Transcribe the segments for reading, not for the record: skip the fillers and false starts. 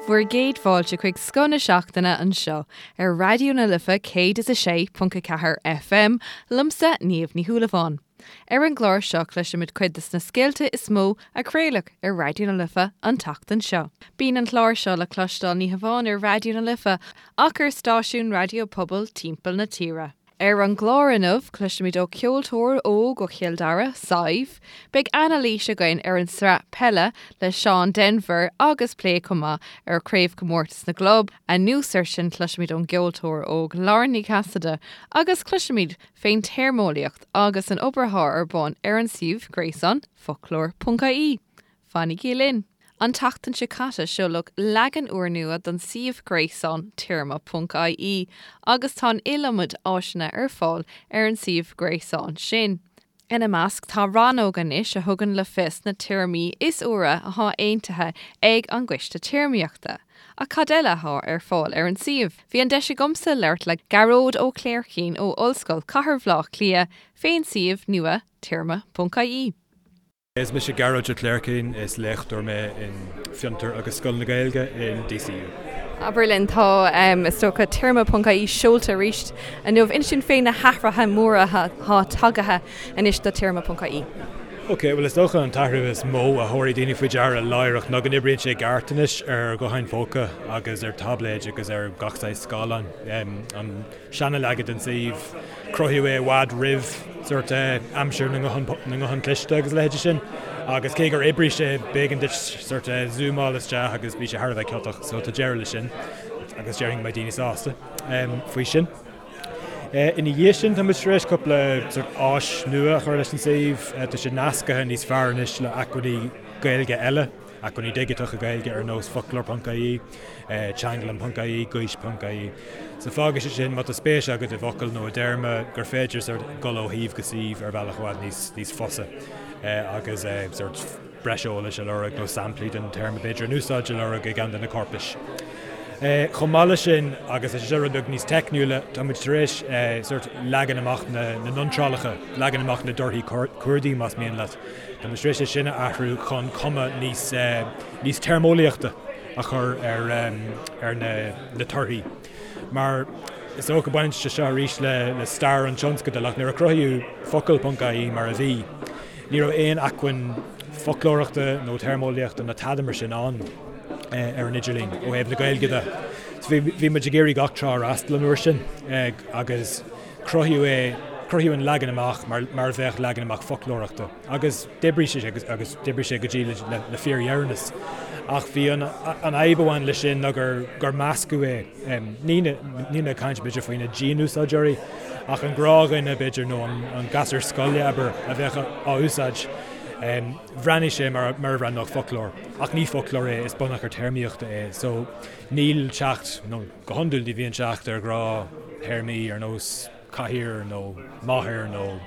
Bhur gcéad fáilte chuig Scoth na Seachtaine anseo ar Raidió na Life 106.4 FM, liomsa Niamh Ní Shúilleabháin. Ar an gclár seo cloisfimid cuid de na scéalta is mó a craoladh ar Raidió na Life an tseachtain seo. Bíonn an clár seo le cloisteáil ní hamháin ar Raidió na Life ach ar stáisiúin raidió pobail timpeall na tíre. Ar an gclár inniu, cloisfimid ó cheoltóir óg ó Chill Dara, Sadhbh. Beidh anailís againn ar an sraith peile le Seán Denvir agus plé chomh maith ar Chraobhchomórtas na gClub. Anuas air sin cloisfimid ón gceoltóir óg Lauren Ní Chasaide agus cloisfimid fén téarmeolaíocht agus an obair atá ar bun ar an suíomh gréasáin foclóir.ie. Fanaigí linn! An tseachtain seo caite seoladh leagan úrnua don suíomh gréasáin téarma.ie agus tá an iliomad áiseanna ar fáil ar an suíomh gréasáin sin. Ina measc tá rannóg anois a thugann le fios na téarmaí is úire atá aontaithe ag an gCoiste Téarmaíochta. Ach cad eile atá ar fáil ar an suíomh? Bhí an deis agamsa labhairt le Gearóid Ó Cléirchín ó Ollscoil Chathair Bhaile Átha Cliath fén suíomh nua téarma.ie. Is mise Gearóid Ó Cléirchín, is léachtóir mé in Fiontar agus Scoil na Gaeilge in DCU. Abair linn, tá, is dócha, téarma.ie seolta arís inniu. Inis dúinn fé na hathruithe móra atá tagaithe anois do téarma.ie. Ok, bhuel is dócha an t-athrú is mó a thabharfaidh daoine faoi deara láithreach ná go n-oibríonn sé i gceart anois ar ghutháin phóca agus ar táibléid agus ar gach saghas scáileáin. An seana-leagan den suíomh. Cruthaíodh é i bhfad roimh sórt aimsir na nguthán cliste agus a leithéidí sin agus cé gur oibrigh sé, b'éigean duit sórt zúmáil isteach agus bhí sé thar a bheith ciotach so tá deireadh leis sin agus déarfainn go mbeidh daoine sásta faoi sin. Ina dhiaidh sin tá muid tar éis cúpla sórt áis nua a chur leis an suíomh. Tá sé nasctha níos fearr anois le acmhainní Gaeilge eile. Acmhainní digiteacha Gaeilge ar nós foclóir.ie, teanglann.ie, gaois.ie. So fágfaidh sé sin, má tá spéis agat i bhfocal nó i dtéarma, gur féidir sort dul ó shuíomh go suíomh ar bhealach i bhfad níos, níos fusa agus sort breis eolais a lorg nó samplaí den téarma b'fhéidir in úsáid a lorg i gceann de na corpais. Chomh maith leis sin, agus tá sé seo rud beag níos teicniúla, tá muid tar éis sort leagan amach na n-iontrálacha, leagan amach na dtorthaí cuardaigh más mian leat, Tá muid tar éis é sin a athrú chun cuma níos níos téarmeolaíochta a chur ar ar na na torthaí. Mar is dócha baineann sé seo arís le le stair an tionscadail ach nuair a cruthaíodh focal.ie mar a bhí, ní raibh aon acmhainn foclóireachta nó téarmeolaíochta ná tada mar sin ann ar an idirlíon ó thaobh na Gaeilge de. So bhí bhí muid ag iarraidh gach trá a fhreastal an uair sin agus Cruthaíodh é, cruthaíodh an leagan amach mar mar a bheadh leagan amach foclóireachta agus d'oibrigh sé agus agus d'oibrigh sé go dtí le le le fíordheireanas. Ach bhí an an fhadhb a bhain leis sin ná gur gur meascadh é. Ní na níl mé ag caint b'fhéidir faoi na dianúsáideoirí ach an gnáthdhuine b'fhéidir nó an an gasúr scoile abair a bheadh á úsáid. Bhreathnaigh sé mar mar a bhreathnódh foclóir ach ní foclóir é, is bunachar téarmaíochta é. So níl teacht nó. Go hiondúil ní bhíonn teacht ar ghnáth-théarmaí ar nós cathaoir nó máthair nó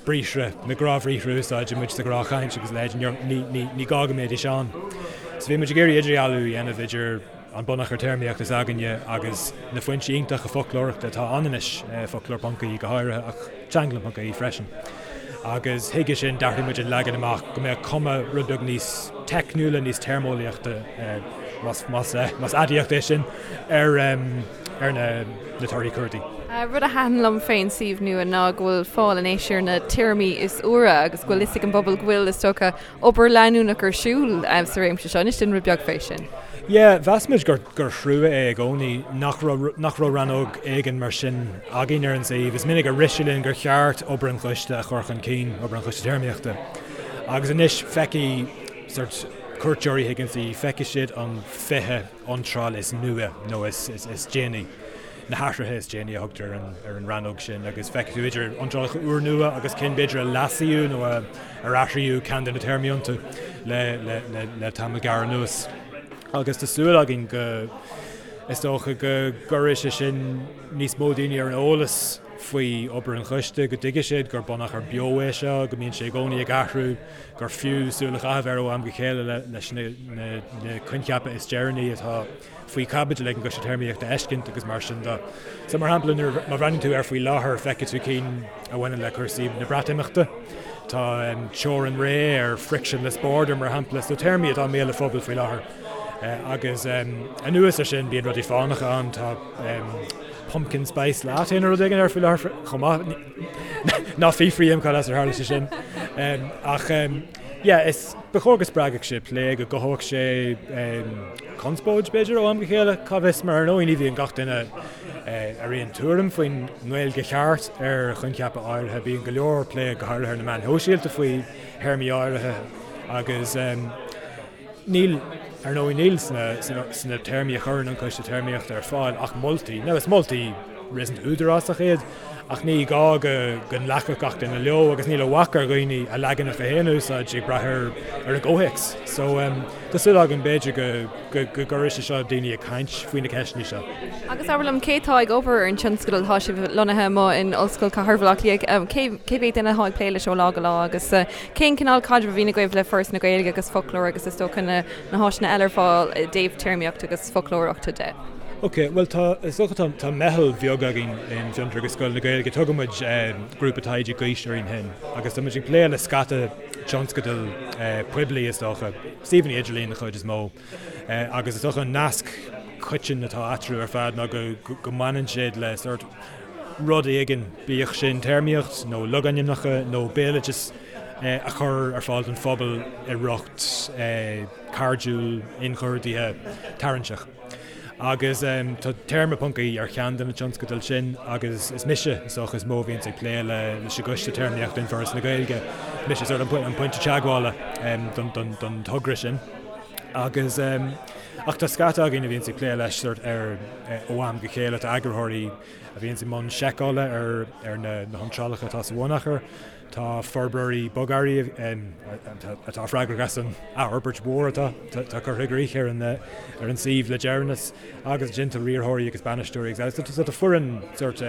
briathra, na gnáthbhriathra a úsáideann muid sa ghnáthchaint agus a leithéid, ní gá go mbeidís ann. So bhí muid ag iarraidh idirdhealú a dhéanamh idir an bunachar téarmaíochta s'againne agus na foinsí iontacha foclóireachta atá ann anois, foclóir.ie go háirithe ach teanglann.ie freisin. Agus chuige sin d'athraigh muid an leagan amach go mbeadh cuma rud beag níos teicniúla, níos téarmeolaíochta, más aidiacht é sin, ar ar na torthaí cuardaigh. Rud a thaitin liom fén suíomh nua ná go bhfuil fáil anois ar na téarmaí is úire agus go bhfuil fhios ag an bpobal go bhfuil, is dócha, obair leanúnach ar siúl sa réimse seo. Inis dúinn rud beag fé sin. Yeah, mheas muid gur gur thrua é i gcónaí nach raibh nach raibh rannóg éigin mar sin againn ar an suíomh. Is minic a rith sé linn gur cheart obair an choiste a chur chun cinn, obair an choiste téarmaíochta. Agus anois feicfidh sort cuairteoirí chuig an suíomh, feicfidh siad an 20 iontráil is nua nó is is déanaí, na hathruithe is déanaí a thugtar ar an ar an rannóg sin agus feicfidh tú idir iontrálacha úrnua agus cinn b'fhéidir a leasaíodh nó a ar athraíodh ceann de na téarmaí iontu le le le le tamall gearr anuas. Agus tá súil againn go, is dócha, go gcuirfidh sé sin níos mó daoine ar an eolas faoi obair an choiste, go dtuigfidh siad gur bunachar beo é seo, go mbíonn sé i gcónaí ag athrú, gur fiú súil a chaitheamh air ó am go chéile leis na coincheapa is deireanaí atá faoi chaibidil ag an gCoiste Téarmaíochta a fheiscint agus mar sin de. So mar shampla, nuair, má bhreathnaíonn tú air faoi láthair, feicfidh tú cinn a bhaineann le cúrsaí na Breatimeachta. Tá teorainn réidh ar frictionless border mar shampla, so téarmaí atá i mbéal an phobail faoi láthair. Agus anuas ar sin bíonn rudaí fánacha ann, tá pumpkin spice latte nó rud éigin ar faoi láthair chomh maith. Ná fiafraigh díom cad as ar tharla sé sin. Ach yeah, is ba chóir go spreagfadh sé plé, go gcothódh sé conspóid b'fhéidir ó am go chéile, cá bhfios, mar ar ndóigh ní bhíonn gach duine ar aon tuairim faoin nGaeilge cheart ar choincheapa áirithe. Bíonn go leor plé go háirithe ar na meáin shóisialta faoi théarmaí áirithe agus Níl, ar ndóigh, níl sna téarmaí a chuireann an Coiste Téarmaíochta ar fáil ach moltaí. Now is moltaí réasúnta údarásach iad, ach ní gá go nglacfadh gach duine leo agus níl a bhac ar dhaoine a leaganacha féin a úsáid ag brath ar an gcomhthéacs. So, tá súil agam b'fhéidir go gcuirfidh sé seo daoine ag caint faoi na ceisteanna seo. Agus abair liom, cé atá ag obair ar an tionscadal? Tá sibh lonnaithe amuigh in Ollscoil Chathair Bhaile Átha Cliath. Cé mhéad duine atá ag plé leis ó lá go lá agus Cén cineál caidrimh a bhíonn agaibh le Foras na Gaeilge agus foclóir agus is dócha na háiseanna eile ar fáil i dtaobh téarmaíocht agus foclóireachta de? Ok, bhuel tá, is dócha tá, tá meitheal bheag againn in Fiontar agus Scoil na Gaeilge, tugann muid Grúpa Taighde Gaois orainn féin agus tá muid ag plé le scata tionscadal poiblí is dócha, suíomhanna idirlín den chuid is mó agus is dócha an nasc coiteann atá eatarthu ar fad ná go, go mbaineann siad le sórt rud éigin, bíodh sin téarmaíocht nó logainmneacha nó béaloideas a chur ar fáil don phobal i riocht cairdiúil, inchuardaithe, tarraingteach. Agus tá téarma ponc ie ar cheann de na tionscadail sin agus is mise, is dócha, is mó a bhíonns ag plé leis an gcoiste téarmaíochta in Foras na Gaeilge. Mise sort an pointe teagmhála don togra sin. Agus ach tá scata againn a bhíonns ag plé leis sort ar ó am go chéile, tá eagarthóirí a bhíonns i mbun seiceála ar ar na hiontrálacha atá sa bhunachar, tá forbróirí bogearraí atá freagrach as an athfhorbairt mhór atá atá curtha i gcrích ar an ar an suíomh le deireanas, agus ansin tá riarthóirí agus bainisteoirí agus eile. So tá foireann sort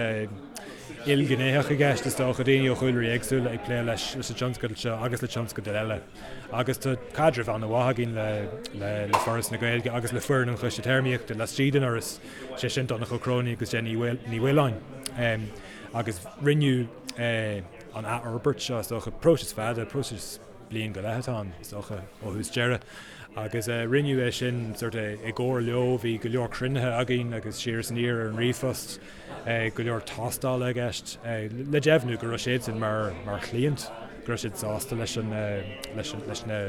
ilghnéitheach i gceist is dócha, daoine ó chúlraí éagsúla ag plé leis leis an tionscadal seo agus le tionscadail eile. Agus tá caidreamh an-mhaith againn le le Foras na Gaeilge agus le foireann an Choiste Téarmaíochta laistigh den Fhoras, sé sin Donncha Ó Cróinín agus Jenny Ní Mhaoláin. Agus rinneadh an athfhorbairt seo, is dócha, próiseas fada, próiseas bliain go leith atá ann, is dócha, ó thús deireadh. Agus rinneadh é sin sort of i gcomhar leo, bhí go leor cruinnithe againn agus siar is aniar ar an ríomhphost. go leor tástála i gceist le deimhniú go raibh siadsan mar mar chliant, go raibh siad sásta leis an leis an leis na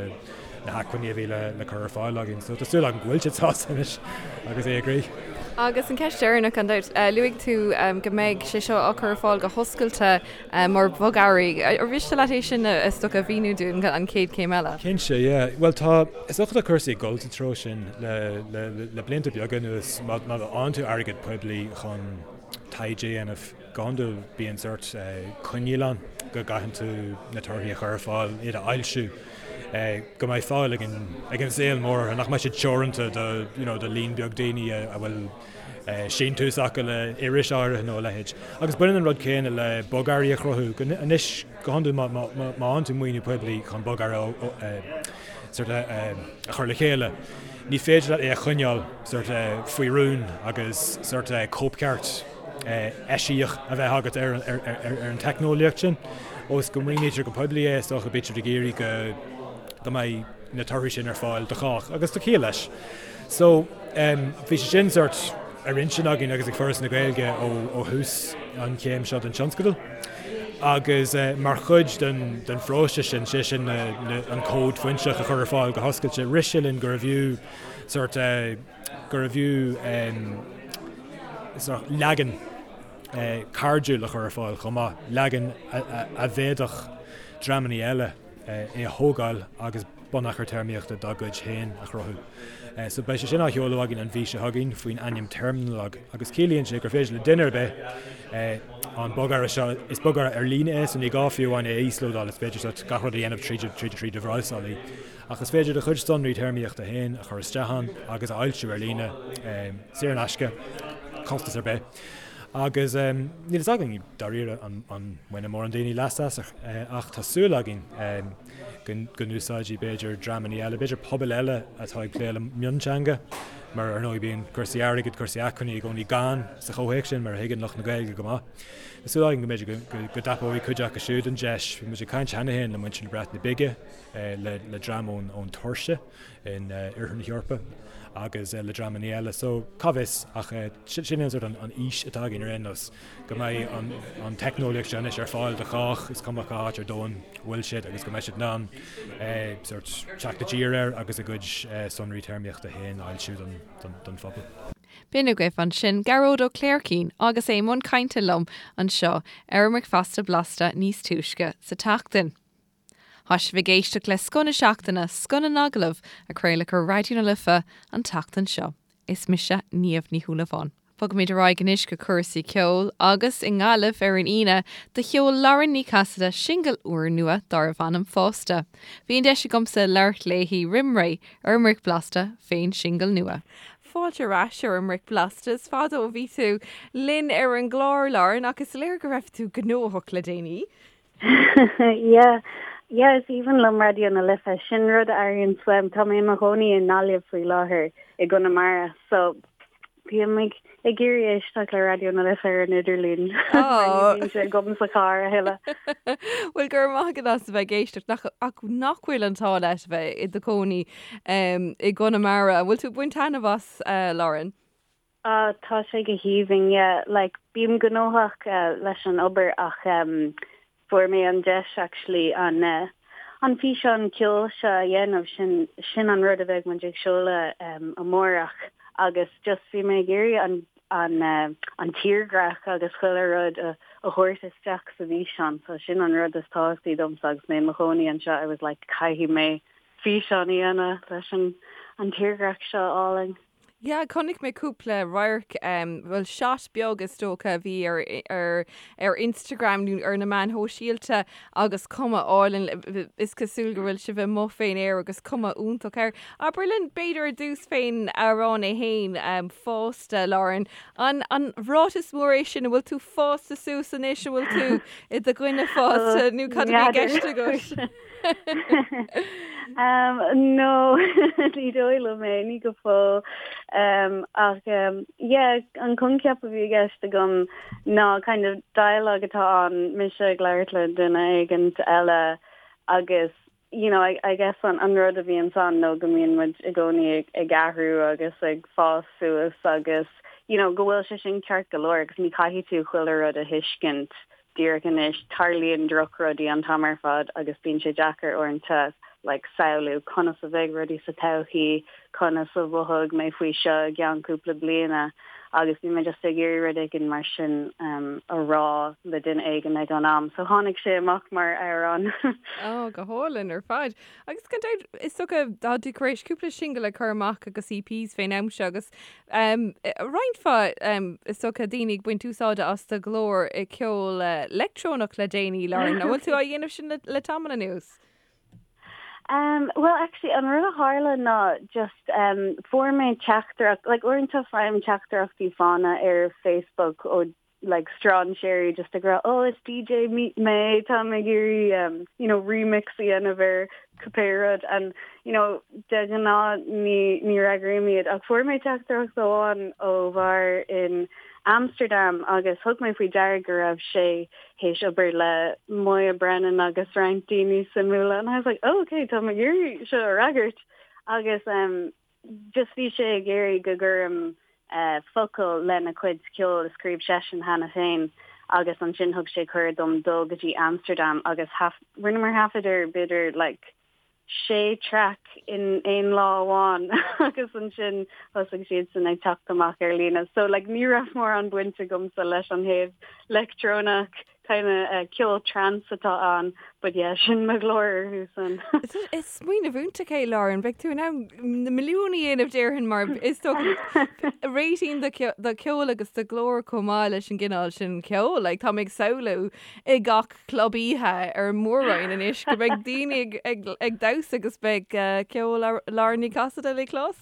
na hacmhainní a bhí le le cur ar fáil againn. So tá súil agam go bhfuil siad sásta anois agus é i gcrích. Agus an ceist dheireanach gan dabht, luaigh tú go mbeidh sé seo á chur ar fáil go hoscailte mar bhogearraí. Ar mhiste leat é sin is dócha a mhíniú dúinn an chéad chéim eile? Cinnte, yeah. Bhuel tá, is dócha tá cúrsaí ag dul sa treo sin le, le, le blianta beaga anuas. Má, má fhaigheann tú airgead poiblí chun taighde a dhéanamh, go hiondúil bíonn sórt coinníoll ann go gcaitheann tú na torthaí a chur ar fáil, iad a fhoilsiú, go mbeidh fáil ag an, ag an saol mór orthu, nach mbeidh siad teoranta do, you know, do líon beag daoine a, a bhfuil síntiús acu le iris áirithe nó a leithéid. Agus baineann an rud céanna le bogearraí a chruthú. Anois, go hiondúil má fhaigheann tú maoiniú poiblí chun bogearra sort of a chur le chéile, ní féidir leat é a choinneáil sort of faoi rún agus sort of cóipcheart eisiach a bheith agat ar an teicneolaíocht sin. Ós go maoinítear go poiblí é, is dócha, bítear ag iarraidh go mbeidh na torthaí sin ar fáil do chách, agus tá ciall leis. So, bhí sé sin sórt ar intinn againn agus ag Foras na Gaeilge ó thús an chéim seo den tionscadal. Agus mar chuid den den phróiseas sin, sé sin an cód foinseach a chur ar fáil go hoscailte, rith sé linn gurbh fhiú sórt gurbh fhiú sórt leagan cairdiúil a chur ar fáil chomh maith, leagan a bhféadfadh dreamanna eile é a thógáil agus bunachar téarmaíochta dá gcuid féin a chruthú. So beidh sé sin á sheoladh againn an mhí seo chugainn faoin ainm Terminologue agus ciallaíonn sé gur féidir le duine ar bith an bogearra seo, is bogearra ar líne é so ní gá fiú amháin é a íoslódáil, is féidir sort gach rud a dhéanamh tríd tríd tríd do bhrabhsálaí. Ach is féidir do chuid sonraí téarmaíochta féin a chur isteach ann agus a fhoilsiú ar líne, saor in aisce, costas ar bith. Agus níl fhios againn dáiríre an mbainfidh mórán daoine leas as ach tá súil againn. go n-úsáidfidh b'fhéidir dreamanna eile, b'fhéidir pobail eile atá ag plé le mionteanga, mar ar ndóigh bíonn cúrsaí airgid, cúrsaí acmhainní i gcónaí gann sa chomhthéacs sin, mar a thuigeann lucht na Gaeilge go maith. Tá súil againn go mb'fhéidir go dtapóidh cuid acu siúd an deis. Bhí muid ag caint cheana féin le muintir na Breataine Bige, le dream ón Tuirce in oirthear na hEorpa agus le dreamanna eile. So, cá bhfios ach sin é an sórt an fhís atá againn ar aon nós, go mbeidh an teicneolaíocht seo anois ar fáil do chách, is cuma cá háit ar domhan a bhfuil siad agus go mbeidh siad in ann sórt teacht i dtír air agus a gcuid sonraí téarmaíochta féin a fhoilsiú don phobal. B'in agaibh ansin Gearóid Ó Cléircín agus é i mbun cainte liom anseo ar an mBricfeasta Blasta níos túisce sa tseachtain. Tá sibh ag éisteacht le Scoth na Seachtaine, Scoth na nAgallamh, a craoladh ar Raidió na Life an tseachtain seo. Is mise Niamh Ní Shúilleabháin. Bogaimid ar aghaidh anois go cúrsaí ceoil agus i nGaillimh ar an Aoine do sheol Lauren Ní Chasaide singil úrnua darbh ainm Fásta. Bhí an deis agamsa labhairt léi roim ré ar an mBric Blasta fén singil nua. Fáilte ar ais ar an mBric Blasta. Is fada ó bhí tú linn ar an gclár, Lauren, ach is léir go raibh tú gnóthach le déanaí. Yeah, yeah, is aoibhinn liom Raidió na Life. Sin rud a airíonn uaim. Tá mé i mo chónaí i nGaillimh faoi láthair, i gConamara, so bím ag ag iarraidh éisteacht le Raidió na Life ar an idirlíon. Mar ní bhíonn sé agam sa charr a thuilleadh. Bhuel, go raibh maith agat as a bheith ag éisteacht. Nach, ach nach bhfuil an t-ádh leat a bheith i do chónaí i gConamara. An bhfuil tú ag baint taitneamh as, Lauren? Ah, tá sé go haoibhinn, yeah. Like, bím gnóthach leis an obair ach em fuair mé an deis actually an eh an físeán ceoil seo a dhéanamh, sin sin an rud a bheidh muid ag seoladh em amárach agus just bhí mé ag iarraidh an an eh an tírdhreach agus chuile rud a a thabhairt isteach sa bhfíseán so sin an rud is tábhachtaí domsa agus mé i mo chónaí anseo, I was like caithfidh mé físeán a dhéanamh leis an an tírdhreach seo álainn. Yeah, chonaic mé cúpla radharc, bhuel shot beag is dócha a bhí ar ar ar Instagram nó ar na meáin shóisialta agus cuma álainn, is cosúil go bhfuil sibh amuigh fén aer agus cuma iontach air. Abair linn b'fhéidir ar dtús fén amhrán é fhéin, Fásta, Lauren. An an ráiteas mór é sin, an bhfuil tú fásta suas anois, an bhfuil tú i do dhuine fásta nó cad a bhí i gceist agat? Um, no, ní dóigh liom é, ní go fóill. Um, ach um, yeah, an coincheap a bhí i gceist agam ná kind of dialogue atá ann, mise ag labhairt le duine éigint eile agus you know, I, I guess an, an rud a bhíonn ann nó go mbíonn muid i gcónaí ag, ag athrú agus ag fás suas agus you know, go bhfuil sé sin ceart go leor agus ní caithfidh tú chuile rud a thuiscint díreach anois, tarlaíonn drochrudaí an t-am ar fad agus bíonn sé deacair uaireanta like samhlú conas a bheidh rudaí sa todhchaí, conas a mhothóidh mé faoi seo i gceann cúpla bliana agus bhí mé just ag iarraidh rud éigin mar sin um, a rá le duine éigin ag an am. So tháinig sé amach mar amhrán. Ó, go hálainn ar fad. Agus gan dabht, is dócha, tá tú tar éis cúpla singil a chur amach agus EPs fén am seo agus roinnt mhaith, is dócha, daoine ag baint úsáide as do ghlór i gceol leictreonach le déanaí, Lauren. An bhfuil tú á dhéanamh sin le tamall anuas? Um, well, actually, an rud a tharla ná just um, fuair mé teachtaireacht, like uaireanta faighim teachtaireachtaí fána ar Facebook ó like strainséirí just ag rá oh is DJ mé táim ag iarraidh um, you know remix a dhéanamh ar cibé rud and you know de ghnáth ní ní fhreagraím iad ach fuair mé teachtaireacht amháin ó bhear in Amsterdam agus thug mé faoi deara go raibh sé théis obair le Moya Brennan agus roinnt daoine suimiúla and I was like oh okay tá mé ag iarraidh seo a fhreagairt agus um, just bhí sé ag iarraidh go gcuirim focail lena chuid ceoil a scríobh seisean cheana féin agus ansin thug sé cuireadh dom dul go dtí Amsterdam agus rinneamar taifead ar b'fhéidir like sé traic in aon lá amháin agus ansin thosaigh siadsan ag teacht amach ar líne. So like ní raibh mórán baint agamsa leis an thaobh leictreonach kind of ceol trance atá ann, but yeah, sin mo ghlór orthu san. Is smaoineamh iontach é, Lauren. Beidh tú in ann na milliúin a dhéanamh déarfainn mar is dócha réitíonn do cheol agus do ghlór chomh maith leis an gcineál sin ceoil. Like, tá mé ag samhlú i gach club oíche ar an Mór-Roinn anois go mbeidh daoine ag, ag, ag damhsa agus beidh uh, ceol Lauren Ní Chasaide le clos.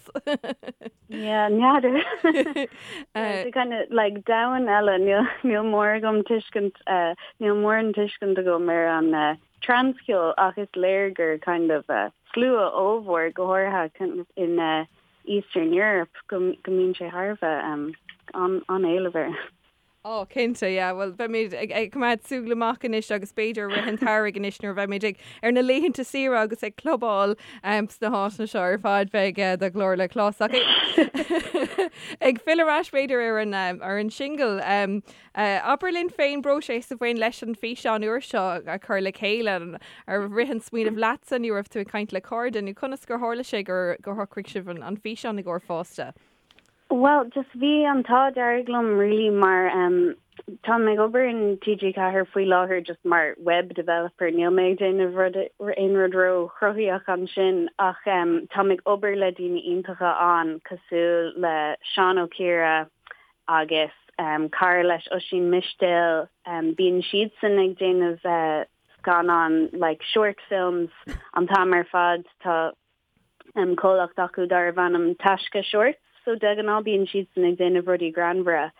Yeah, n'fheadar. It's kind of like domhan eile, níl níl mórán agam tuiscint uh, níl mórán tuiscint agam ar an trance-cheol ach is léir gur kind of slua ollmhór, go háirithe kind of in Eastern Europe, go mbíonn sé thar a bheith an-éileamh air. Ó, cinnte, yeah. Bhuel, beimid ag coimeád súil amach anois agus b'fhéidir i rith an tsamhraidh anois nuair a bheimid ag ar na laethanta saoire agus ag clubáil sna háiteanna seo ar fad beidh do ghlór le clos. Ach ag filleadh ar ais b'fhéidir ar an ar an singil, abair linn fén bpróiseas a bhain leis an físeán úr seo a chur le chéile, ar rith an smaoineamh leatsa nó raibh tú ag caint le cairde nó conas gur tharla sé gur gur shocraigh sibh an físeán i gcomhair Fásta? Bhuel, just bhí an t-ádh dearg liom really mar em táim ag obair in TG4 faoi láthair just mar web developer, níl mé ag déanamh rud aon rud ró-chruthaíoch ansin ach em táim ag obair le daoine iontacha ann cosúil le Seán Ó Ciardha agus em cara leis Oisín Mistéil, em bíonn siadsan ag déanamh eh scannán like short films an t-am ar fad, tá comhlacht acu darbh ainm Taisce Shorts, so de ghnáth bíonn siadsan ag déanamh rudaí greannmhara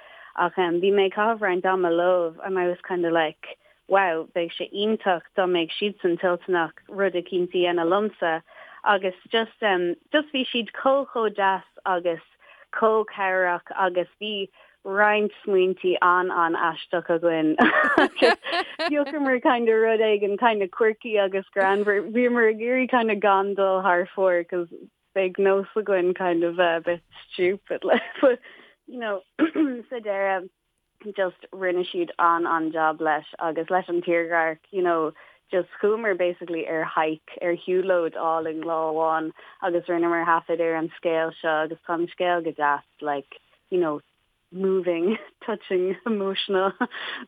ach bhí mé ag caitheamh roinnt ama leo and I was kind of like wow bheadh sé iontach dá mbeadh siadsan toilteanach rud eicínt a dhéanamh liomsa agus just just bhí siad chomh chomh deas agus chomh cabhrach agus bhí roinnt smaointí an-an-aisteach againn agus phiocamar kind of rud éigin kind of quirky agus greannmhar. Bhíomar ag iarraidh kind of gan dul thar fóir cos beidh nós againn kind of a bit stupid like but you know sa deireadh just rinne siad an-an-job leis agus leis an tírdhreach you know just chuamar basically ar hike ar shiúlóid álainn lá amháin agus rinneamar taifead ar an scéal seo agus tá an scéal go deas like you know, moving, touching, emotional,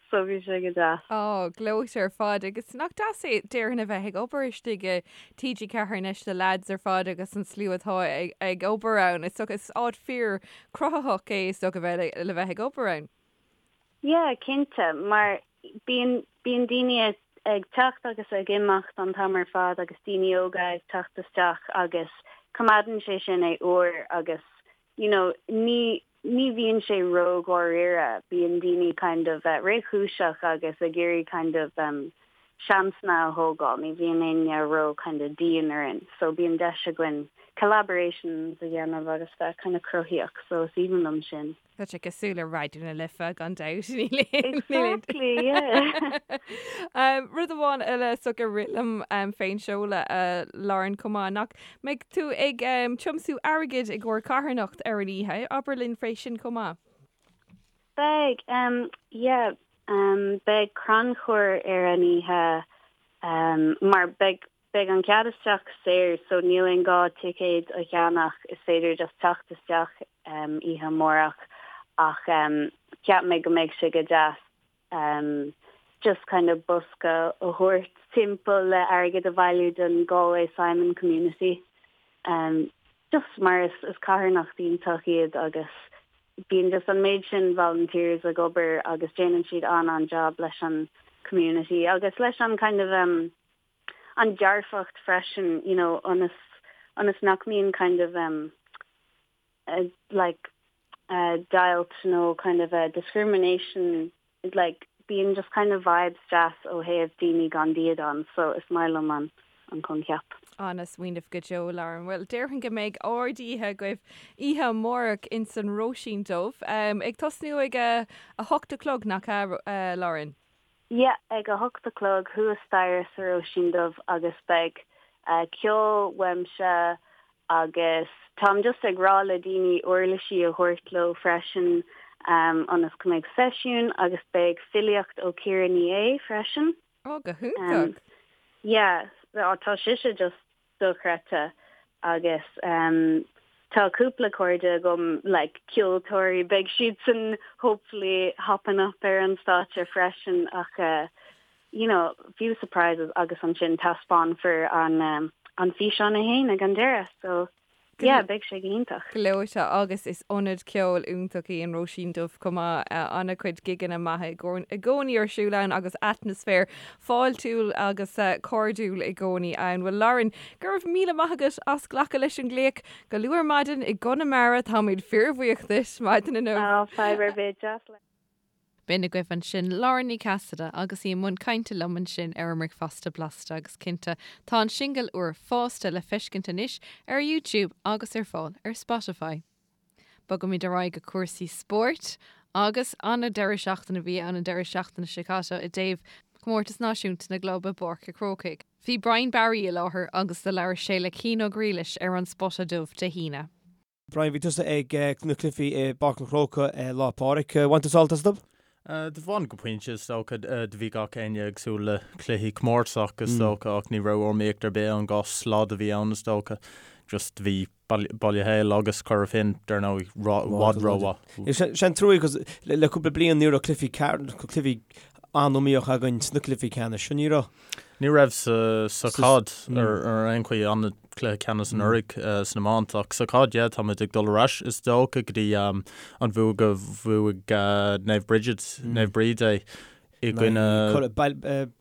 so bhí sé go deas. Á, gleoite ar fad agus nach deas é déarfainn a bheith ag obair istigh i TG4 anois na lads ar fad agus an slua atá ag obair ann. Is dócha is áit fíor cruthaitheach é is dócha bheith le bheith ag obair ann. Yeah, cinnte, mar bíonn bíonn daoine ag teacht agus ag imeacht an t-am ar fad agus daoine óga ag teacht isteach agus coimeádann sé sin é úr agus you know, ní, ní bhíonn sé ró-dháiríre, bíonn daoine kind of réchúiseach agus ag iarraidh kind of seansanna a thógáil, ní bhíonn éinne ró kind of dian orainn, so bíonn deis againn collaborations a dhéanamh agus bheith kind of cruthaíoch, so is aoibhinn liom sin. Tá sé cosúil le Raidió na Life gan dabht. Exactly, yeah. Rud amháin eile is dócha a rith liom fén seoladh a Lauren chomh maith, nach mbeidh tú ag tiomsú airgid i gcomhair carthanacht ar an oíche, abair linn fé sin chomh maith. Beidh, yeah, beidh crannchur ar an oíche mar beidh Beidh an cead isteach saor so níl aon gá ticéad a cheannach, is féidir just teacht isteach oíche amárach ach cheap mé go mbeidh sé go deas just kind of bosca a thabhairt timpeall le airgead a bhailiú don Galway Simon Community just mar is is carthanacht iontach iad agus bíonn just an méid sin volunteers ag obair agus déanann siad an-an-job leis an community agus leis an kind of an dearfacht freisin you know ionas ionas nach mbíonn kind of um like uh deighilt nó kind of a discrimination like bíonn just kind of vibes deas ó thaobh daoine gan dídean so is maith liom an an coincheap. Ana-smaoineamh go deo, Lauren. Bhuel, déarfainn go mbeidh ard-oíche agaibh oíche amárach ins an Róisín Dubh. Ag tosnú ag a 8 a chlog, nach ea, Lauren? Yeah, ag a hocht a chlog thuas staighre sa Róisín Dubh agus beidh ceol uaimse agus táim just ag rá le daoine uirlisí a thabhairt leo freisin ionas go mbeidh seisiún agus beidh filíocht ó Ciara Ní É freisin. Ó, go hiontach! Yeah, tá sise just dochreidte agus tá cúpla cairde agam like ceoltóirí beidh siadsan hopefully hopping up ar an stáitse freisin ach you know few surprises agus ansin taispeánfar an an físeán é fhéin ag an deireadh so yeah beidh sé go hiontach. Gleoite agus is ionad ceoil iontach í an Róisín Dubh chomh maith. An-chuid gigeanna maithe i gcónaí ar siúl ann agus atmaisféar fáiltiúil agus cairdiúil i gcónaí ann. Bhuel Lauren, go raibh míle maith agat as glacadh leis an nglaoch go luath ar maidin i gConamara. Táimid fíorbhuíoch duit maidin inniu. Á, fadhb ar bith, deas. B'in agaibh ansin Lauren Ní Chasaide agus í i mbun cainte liom ansin ar an mBricfeasta Blasta agus cinnte tá an singil úr Fásta le feiscint anois ar YouTube agus ar fáil ar Spotify. Bogaimid ar aghaidh go cúrsaí spóirt agus an-deireadh seachtaine a bhí ann an deireadh seachtaine seo caite i dtaobh Chomórtas Náisiúnta na gClub i bPáirc a' Chrócaigh. Bhí Brian Barry i láthair agus do labhair sé le Cian Ó Griallais ar An Spota Dubh Dé hAoine. Brian, bhí tusa ag na cluichí i bPáirc an Chrócaigh Lá Pádraig. Bhain tú sult astu? Do bhain go pointe is dócha. Do bhí gach éinne ag súil le cluichí comórtasach is dócha ach ní raibh iomaíocht ar bith ann, 2 slad a bhí ann is dócha. Just do bhí Baile Héil agus Cora Finne dar ndóigh i bhfad rómhaith. Sé an trua cos le cúpla bliain ní raibh cluichí cluichí an-iomaíoch againn sna cluichí ceannais, ní raibh? Ní raibh sa chaid ar aon chaoi, an-chluiche ceannais anuraidh san iomáint ach sa chaid yeah táimid ag dul ar ais is dócha go dtí an bhua go bhuaigh Naomh Bridget, Naomh Bríd é i gcoinne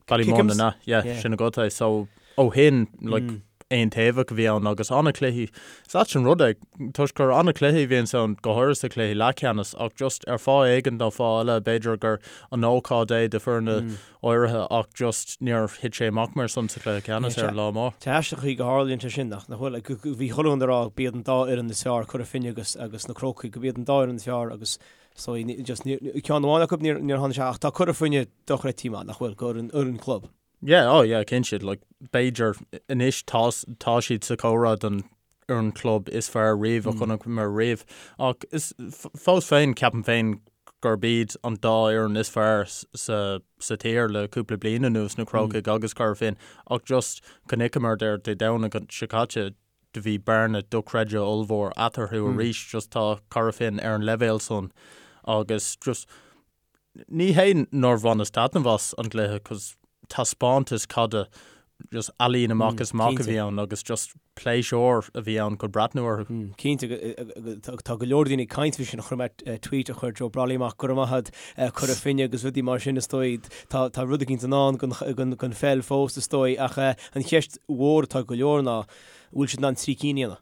Ballymun an ea? Yeah sin agat é so ó shin like aontaobhach a bhí ann agus an-chluichí. Is ait an rud é toisc gur an-chluichí a bhíonns ann go háirithe sa chluiche leathcheannais ach just ar fáth éigin nó fáth eile b'fhéidir gur an ócáid é do foirne áirithe ach just níor thit sé amach mar san sa chluiche ceannais ar an lá mór. Tá aisteach an chaoi go tharlaíonn sé sin nach bhfuil? Bhí chuile dhuine ag rá b'iad an dá fhoireann is fearr, Cora Finne agus agus na Crócaigh, go b'iad an dá fhoireann is fearr agus so just ceann amháin acu níor tháinig sé ach tá Cora Finne dochreidte maith nach bhfuil, go fhoireann fhoireann club. Yeah, oh yeah, cinnte, like b'fhéidir anois tá tá siad sa chomhrá don fhoireann club is fearr riamh a chonaiceamar riamh. Ach is fós féin ceapaim féin gurb iad an dá fhoireann is fearr sa sa tír le cúpla bliain anuas, na Crócaigh agus Cora Finne. Ach just chonaiceamar ar Dé Domhnaigh seo caite do bhí bearna dochreidte ollmhór eatarthu arís just tá Cora Finne ar an leibhéal san agus just Ní hé nár bhaineas taitneamh as an gcluiche cos taispeántas caide just ealaín amach is amach a bhí ann agus just pléisiúr a bhí ann chun breathnú orthu. Cinnte, tá go leor daoine ag caint faoi sin, chonaic mé tweet a chuir Joe Brolly amach, go raibh maith agat, Cora Finne agus rudaí mar sin is dóigh. Tá rud eicínt i ndán don pheil fós is dóigh ach an cheist mhór atá ag go leor ná an bhfuil siad in ann 3 cinn a dhéanamh?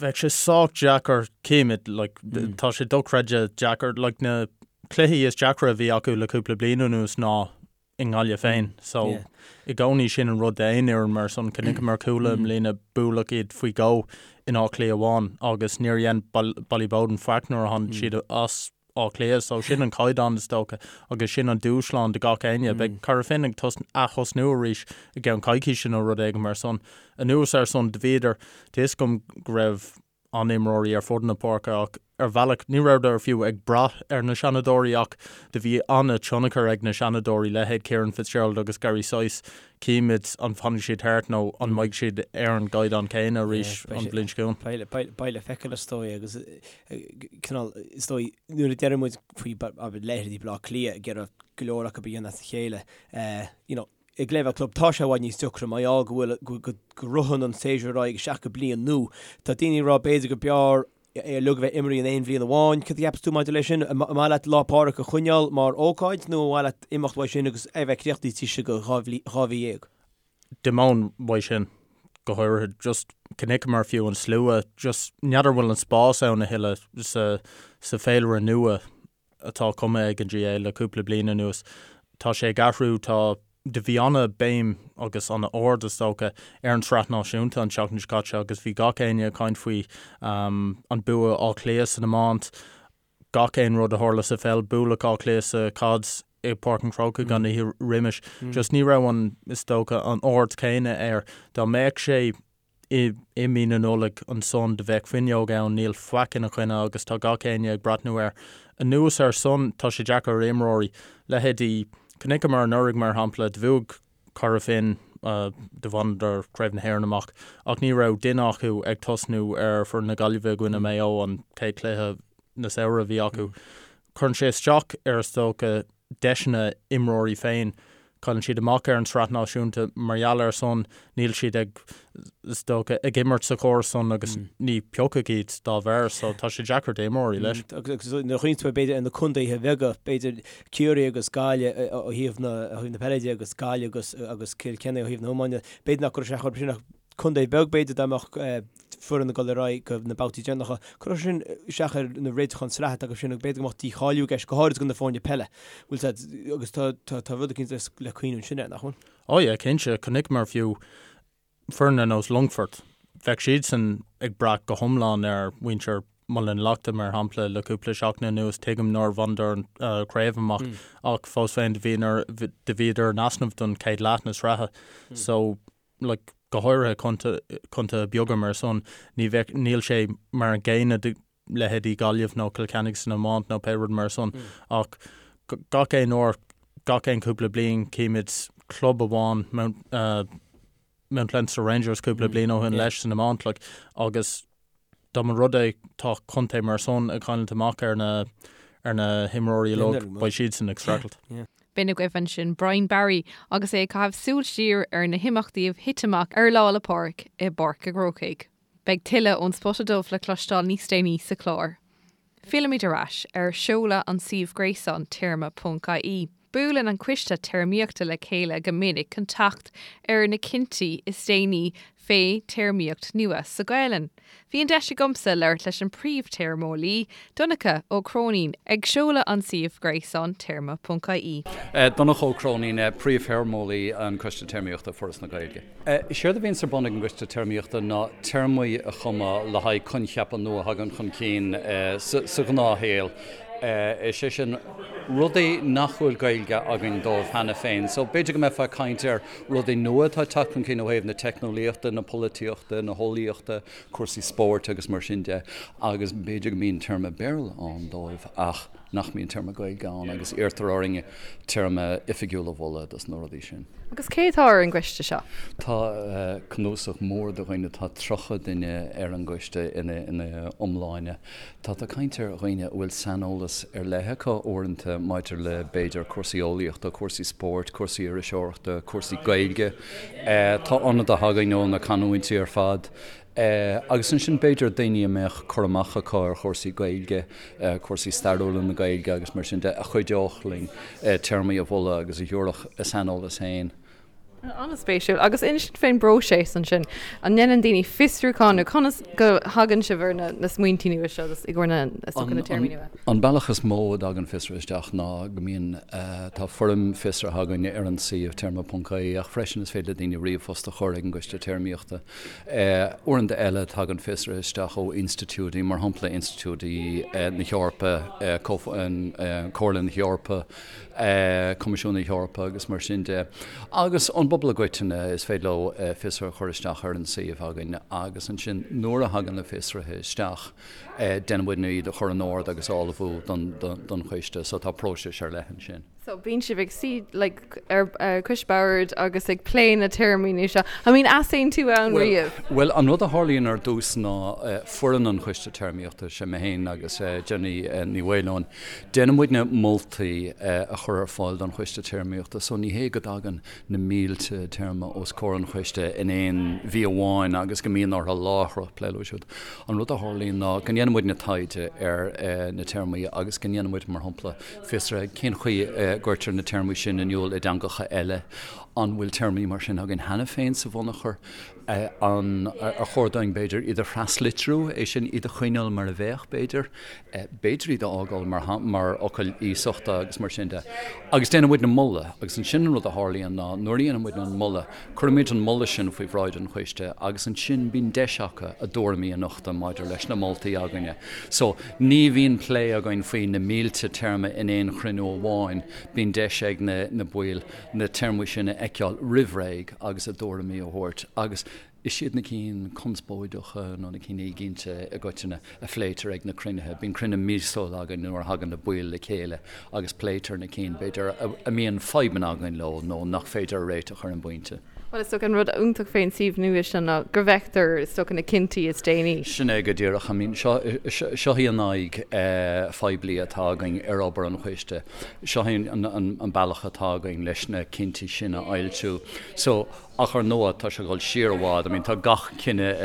Bheadh sé sách deacair, címid, like, tá sé dochreidte deacair, like, na cluichí is deacra a bhí acu le cúpla bliain anuas ná i nGaillimh féin. So, i gcónaí sin an rud d'aon fhoireann mar san, chonaiceamar Cuala i mbliana, buaileadh iad faoi dhó in Áth Cliath amháin agus níor dhein Ballyboden faic nuair a tháinig siad as Áth Cliath. So sin an caighdeán is dócha agus sin an dúshlán do gach éinne. Beidh Cora Finne ag ath-thosnú arís i gceann coicíse nó rud éigin mar san. Anuas ar san, do bhíodar, tá fhios agam go raibh an-imreoirí ar fud na páirce ach ar bhealach ní rabhadar fiú ag brath ar na seanadóirí ach do bhí an-tionchar ag na seanadóirí, leithéid Kieran Fitzgerald agus Gary Sice. Címid an bhfanfaidh siad thart nó an mbeidh siad ar an gcaighdeán céanna arís an bhliain seo chugainn. Beidh le feiceáil is dóigh agus cineál, is dóigh, nuair a deireann muid faoi leithéidí Baile Átha Cliath ag iarraidh go leor acu a dhéanamh as a chéile, you know, ag leibhéal club tá sé i bhfad níos deacra mar gheall go bhfuil, go ritheann an séasúr ar aghaidh isteach go bliain nua. Tá daoine ag rá b'fhéidir go b'fhearr é uilig a bheith imeartha in aon bhliain amháin. Cad a cheapas tú maidir leis sin? An maith leat Lá Pádraig a choinneáil mar ócáid nó an mhaith leat imeacht uaidh sin agus é a bheith críochnaithe taobh istigh de 2 mhí? D'imeoinn uaidh sin, go háirithe, just chonaiceamar fiú an slua, just n'fheadar bhfuil an spás ann a thuilleadh sa, sa féilire nua atá cumtha ag an GAA le cúpla bliain anuas. Tá sé ag athrú, tá, do bhí ana-bhéim agus ana-aird is dócha ar an tsraith náisiúnta an tseachtain seo caite agus bhí gach éinne ag caint faoi an bua Áth Cliath san iomáint, gach aon rud a tharla sa pheil, bualadh Áth Cliath sa chaid i bPáirc an Chrócaigh an oíche roimis. Just ní raibh an, is dócha, an aird chéanna air. Dá mbeadh sé i i mí na Nollag ansan do bheadh fuinneog ann, níl faic ina choinne agus tá gach éinne ag breathnú air. Anuas ar san, tá sé deacair ar imreoirí, leithéidí, chonaiceamar anuraidh mar shampla, do bhuaigh Cora Finne, do bhaineadar Craobh na hÉireann amach ach ní raibh duine acu ag tosnú ar foireann na Gaillimhe i gcoinne Maigh Eo an chéad chluiche na samhradh a bhí acu. Cuireann sé isteach ar is dócha deiseanna imreoirí féin. Cailleann siad amach ar an tsraith náisiúnta mar gheall ar san, níl siad ag, is dócha, ag imirt sa chóras san agus ní piocadh iad dá bharr so tá sé deacair d'imreoirí leis. Agus nuair a chuimhníonn tú b'fhéidir ar na contaetha beaga, b'fhéidir Ciarraí agus Gaillimh ó thaobh na ó thaobh na peile de agus Gaillimh agus agus Cill Chainnigh ó thaobh na hiomána, b'fhéidir nach gcuirfeadh sé chomh sin ach contae beag b'fhéidir dá mbeadh. foireann ag dul ar aghaidh go na babhtaí deireanacha. Cuirfidh sin isteach ar na réiteacháin sraithe atá acu sin agus b'fhéidir go mbeadh dícháiliú i gceist, go háirid do na foirne peile. Bhfuil a fhios agat, agus tá, tá, tá rud eicínt le cuimhniú ansin air, nach bhfuil? Ó yeah, cinnte. Chonaiceamar fiú foireann ar nós Longfort, bheadh siadsan ag brath go hiomlán ar mhuintir Muileann Lochta, mar shampla, le cúpla seachtain anuas. Tuigim nár bhaineadar an chraobh amach ach fós féin do bhíodar in easnamh don chéad leath na sraithe. So, like, go háirithe contaetha beaga mar san, ní bheadh, níl sé mar an gcéanna do leithéidí Gaillimh nó Cill Chainnigh san iomáint nó pé rud mar san ach gach aon uair, gach aon cúpla bliain címid club amháin, Mount, Mount Leinster Rangers cúpla bliain ó shin leis san iomáint like, agus dá mba rud é tá contae mar san ag cailliúint amach ar na ar na himreoirí uilig, beidh siadsan ag streachailt. B'in agaibh ansin Brian Barry agus é ag caitheamh súil siar ar na himeachtaí a thit amach ar Lá 'le Pádraig i bPáirc an Chrócaigh. Beidh tuilleadh ón Spota Dubh le cloisteáil níos déanaí sa chlár. Fillimid ar ais ar seoladh an suímh gréasáin téarma.ie. Buaileann an Coiste Téarmaíochta le chéile go minic chun teacht ar na cinntí is déanaí fé théarmaíocht nua sa Ghaelainn. Bhí an deis agamsa labhairt leis an príomh-théarmeolaí, Donncha Ó Cróinín, ag seoladh an suímh gréasáin téarma.ie. Donncha Ó Cróinín, Príomh-Théarmeolaí an Coiste Téarmaíochta, Foras na Gaeilge. Is éard a bhíonns ar bun ag an gCoiste Téarmaíochta ná téarmaí a chumadh le haghaidh coincheapa nua a thagann chun cinn sa ghnáthshaol, is é sin, rudaí nach bhfuil Gaeilge againn dóibh cheana féin. So, b'fhéidir go mbeifeá ag caint ar rudaí nua atá ag teacht chun cinn ó thaobh na teicneolaíochta, na polaitíochta, na heolaíochta, cúrsaí spóirt agus mar sin de, agus b'fhéidir go mbíonn téarma Béarla ann dóibh ach nach mbíonn téarma Gaeilge ann agus iarrtar orainn téarma oifigiúil a mholadh dos na rudaí sin. Agus cé atá ar an gcoiste seo? Tá cnuasach mór de dhaoine, tá 30 duine ar an gcoiste ina iomláine. Tá tú ag caint ar dhaoine a bhfuil saineolas ar leith acu uaireanta maidir le b'fhéidir cúrsaí eolaíochta, cúrsaí spóirt, cúrsaí iriseoireachta, cúrsaí Gaeilge. Tá ionadaithe againn ó na canúintí ar fad. Agus ansin b'fhéidir daoine a mbeadh cur amach acu ar chúrsaí Gaeilge, cúrsaí stairiúla na Gaeilge agus mar sin de, a chuideodh linn téarmaí a mholadh agus a thabharfadh a saineolas féin. An-spéisiúil. Agus inis dúinn fén bpróiseas ansin. An ndéanann daoine fiosrúchán nó conas go thagann sibh ar na smaointí nua seo i gcomhair na na téarmaí nua? An bealach is mó a dtagann fiosruithe isteach ná go mbíonn, tá foirm fiosraithe againn ar an suíomh téarma.ie ach freisin is féidir le daoine ríomhphost a chur ag an gCoiste Téarmaíochta. Uaireanta eile, tagann fiosruithe isteach ó institiúidí, mar shampla institiúidí na hEorpa, Comhairle na hEorpa, Coimisiún na hEorpa agus mar sin de. Agus ón bpobal i gcoitinne, is féidir leo fiosruithe a chur isteach ar an suíomh againn agus ansin nuair a thagann na fiosruithe isteach, déanann muidne iad a chur in ord agus a ullmhú don choiste. So tá próiseas ar leith ansin. So bíonn sibh ag suí like ar cois boird agus ag plé na téarmaí nua seo. I mean easaontú ann riamh? Bhuel, an rud a tharlaíonn ar dtús ná foireann an Choiste Téarmaíochta, sé mé féin agus Jenny Ní Mhaoileoin, déanann muidne moltaí a chur ar fáil don Choiste Téarmaíochta. So ní hé go dtagann na mílte téarma os comhair an choiste in aon mhí amháin agus go mbíonn orthu láithreach plé leo siúd. An rud a tharlaíonn ná go ndéanann muidne taighde ar na téarmaí agus go ndéanann muid, mar shampla, Fiosruithe, cén chaoi a gcuirtear na téarmaí sin in iúl i dteangacha eile? An bhfuil téarmaí mar sin againn cheana féin sa bhunachar? An ar chóir dúinn, b'fhéidir, iad a thraslitriú, é sin, iad a choinneáil mar a bheadh, b'fhéidir? B'fhéidir iad a fhágáil mar mar fhocail iasachta agus mar sin de. Agus déanann muidne moladh, agus ansin an rud a tharlaíonn ná nuair a dhéanann muidne an moladh, Cuirimid an moladh sin faoi bhráid an choiste agus ansin bíonn deis acu a dtuairimí a nochtadh maidir leis na moltaí againne. So, ní bhíonn plé againn faoi na mílte téarma in aon chruinniú amháin, bíonn deis ag na na baill na téarmaí sin a fheiceáil roimh ré agus a dtuairimí a thabhairt agus is iad na cinn conspóideacha nó na cinn éiginnte i gcoitinne a phléitear ag na cruinnithe. Bíonn cruinniú míosúil againn nuair a thagann na baill le chéile agus pléitear na cinn, b'fhéidir, a mbíonn fadhbanna againn leo nó nach féidir a réiteach ar an bpointe. Bhuel, is dócha an rud iontach fén suíomh nua seo ná go bhfeictear, is dócha, na cinntí is déanaí. Sin é go díreach. I mean, seo, seo í an aghaidh phoiblí atá againn ar obair an choiste. Seo é an bealach atá againn leis na cinntí sin a fhoilsiú. So. Ach ar ndóigh, tá sé ag dul siar i bhfad, I mean tá gach cinneadh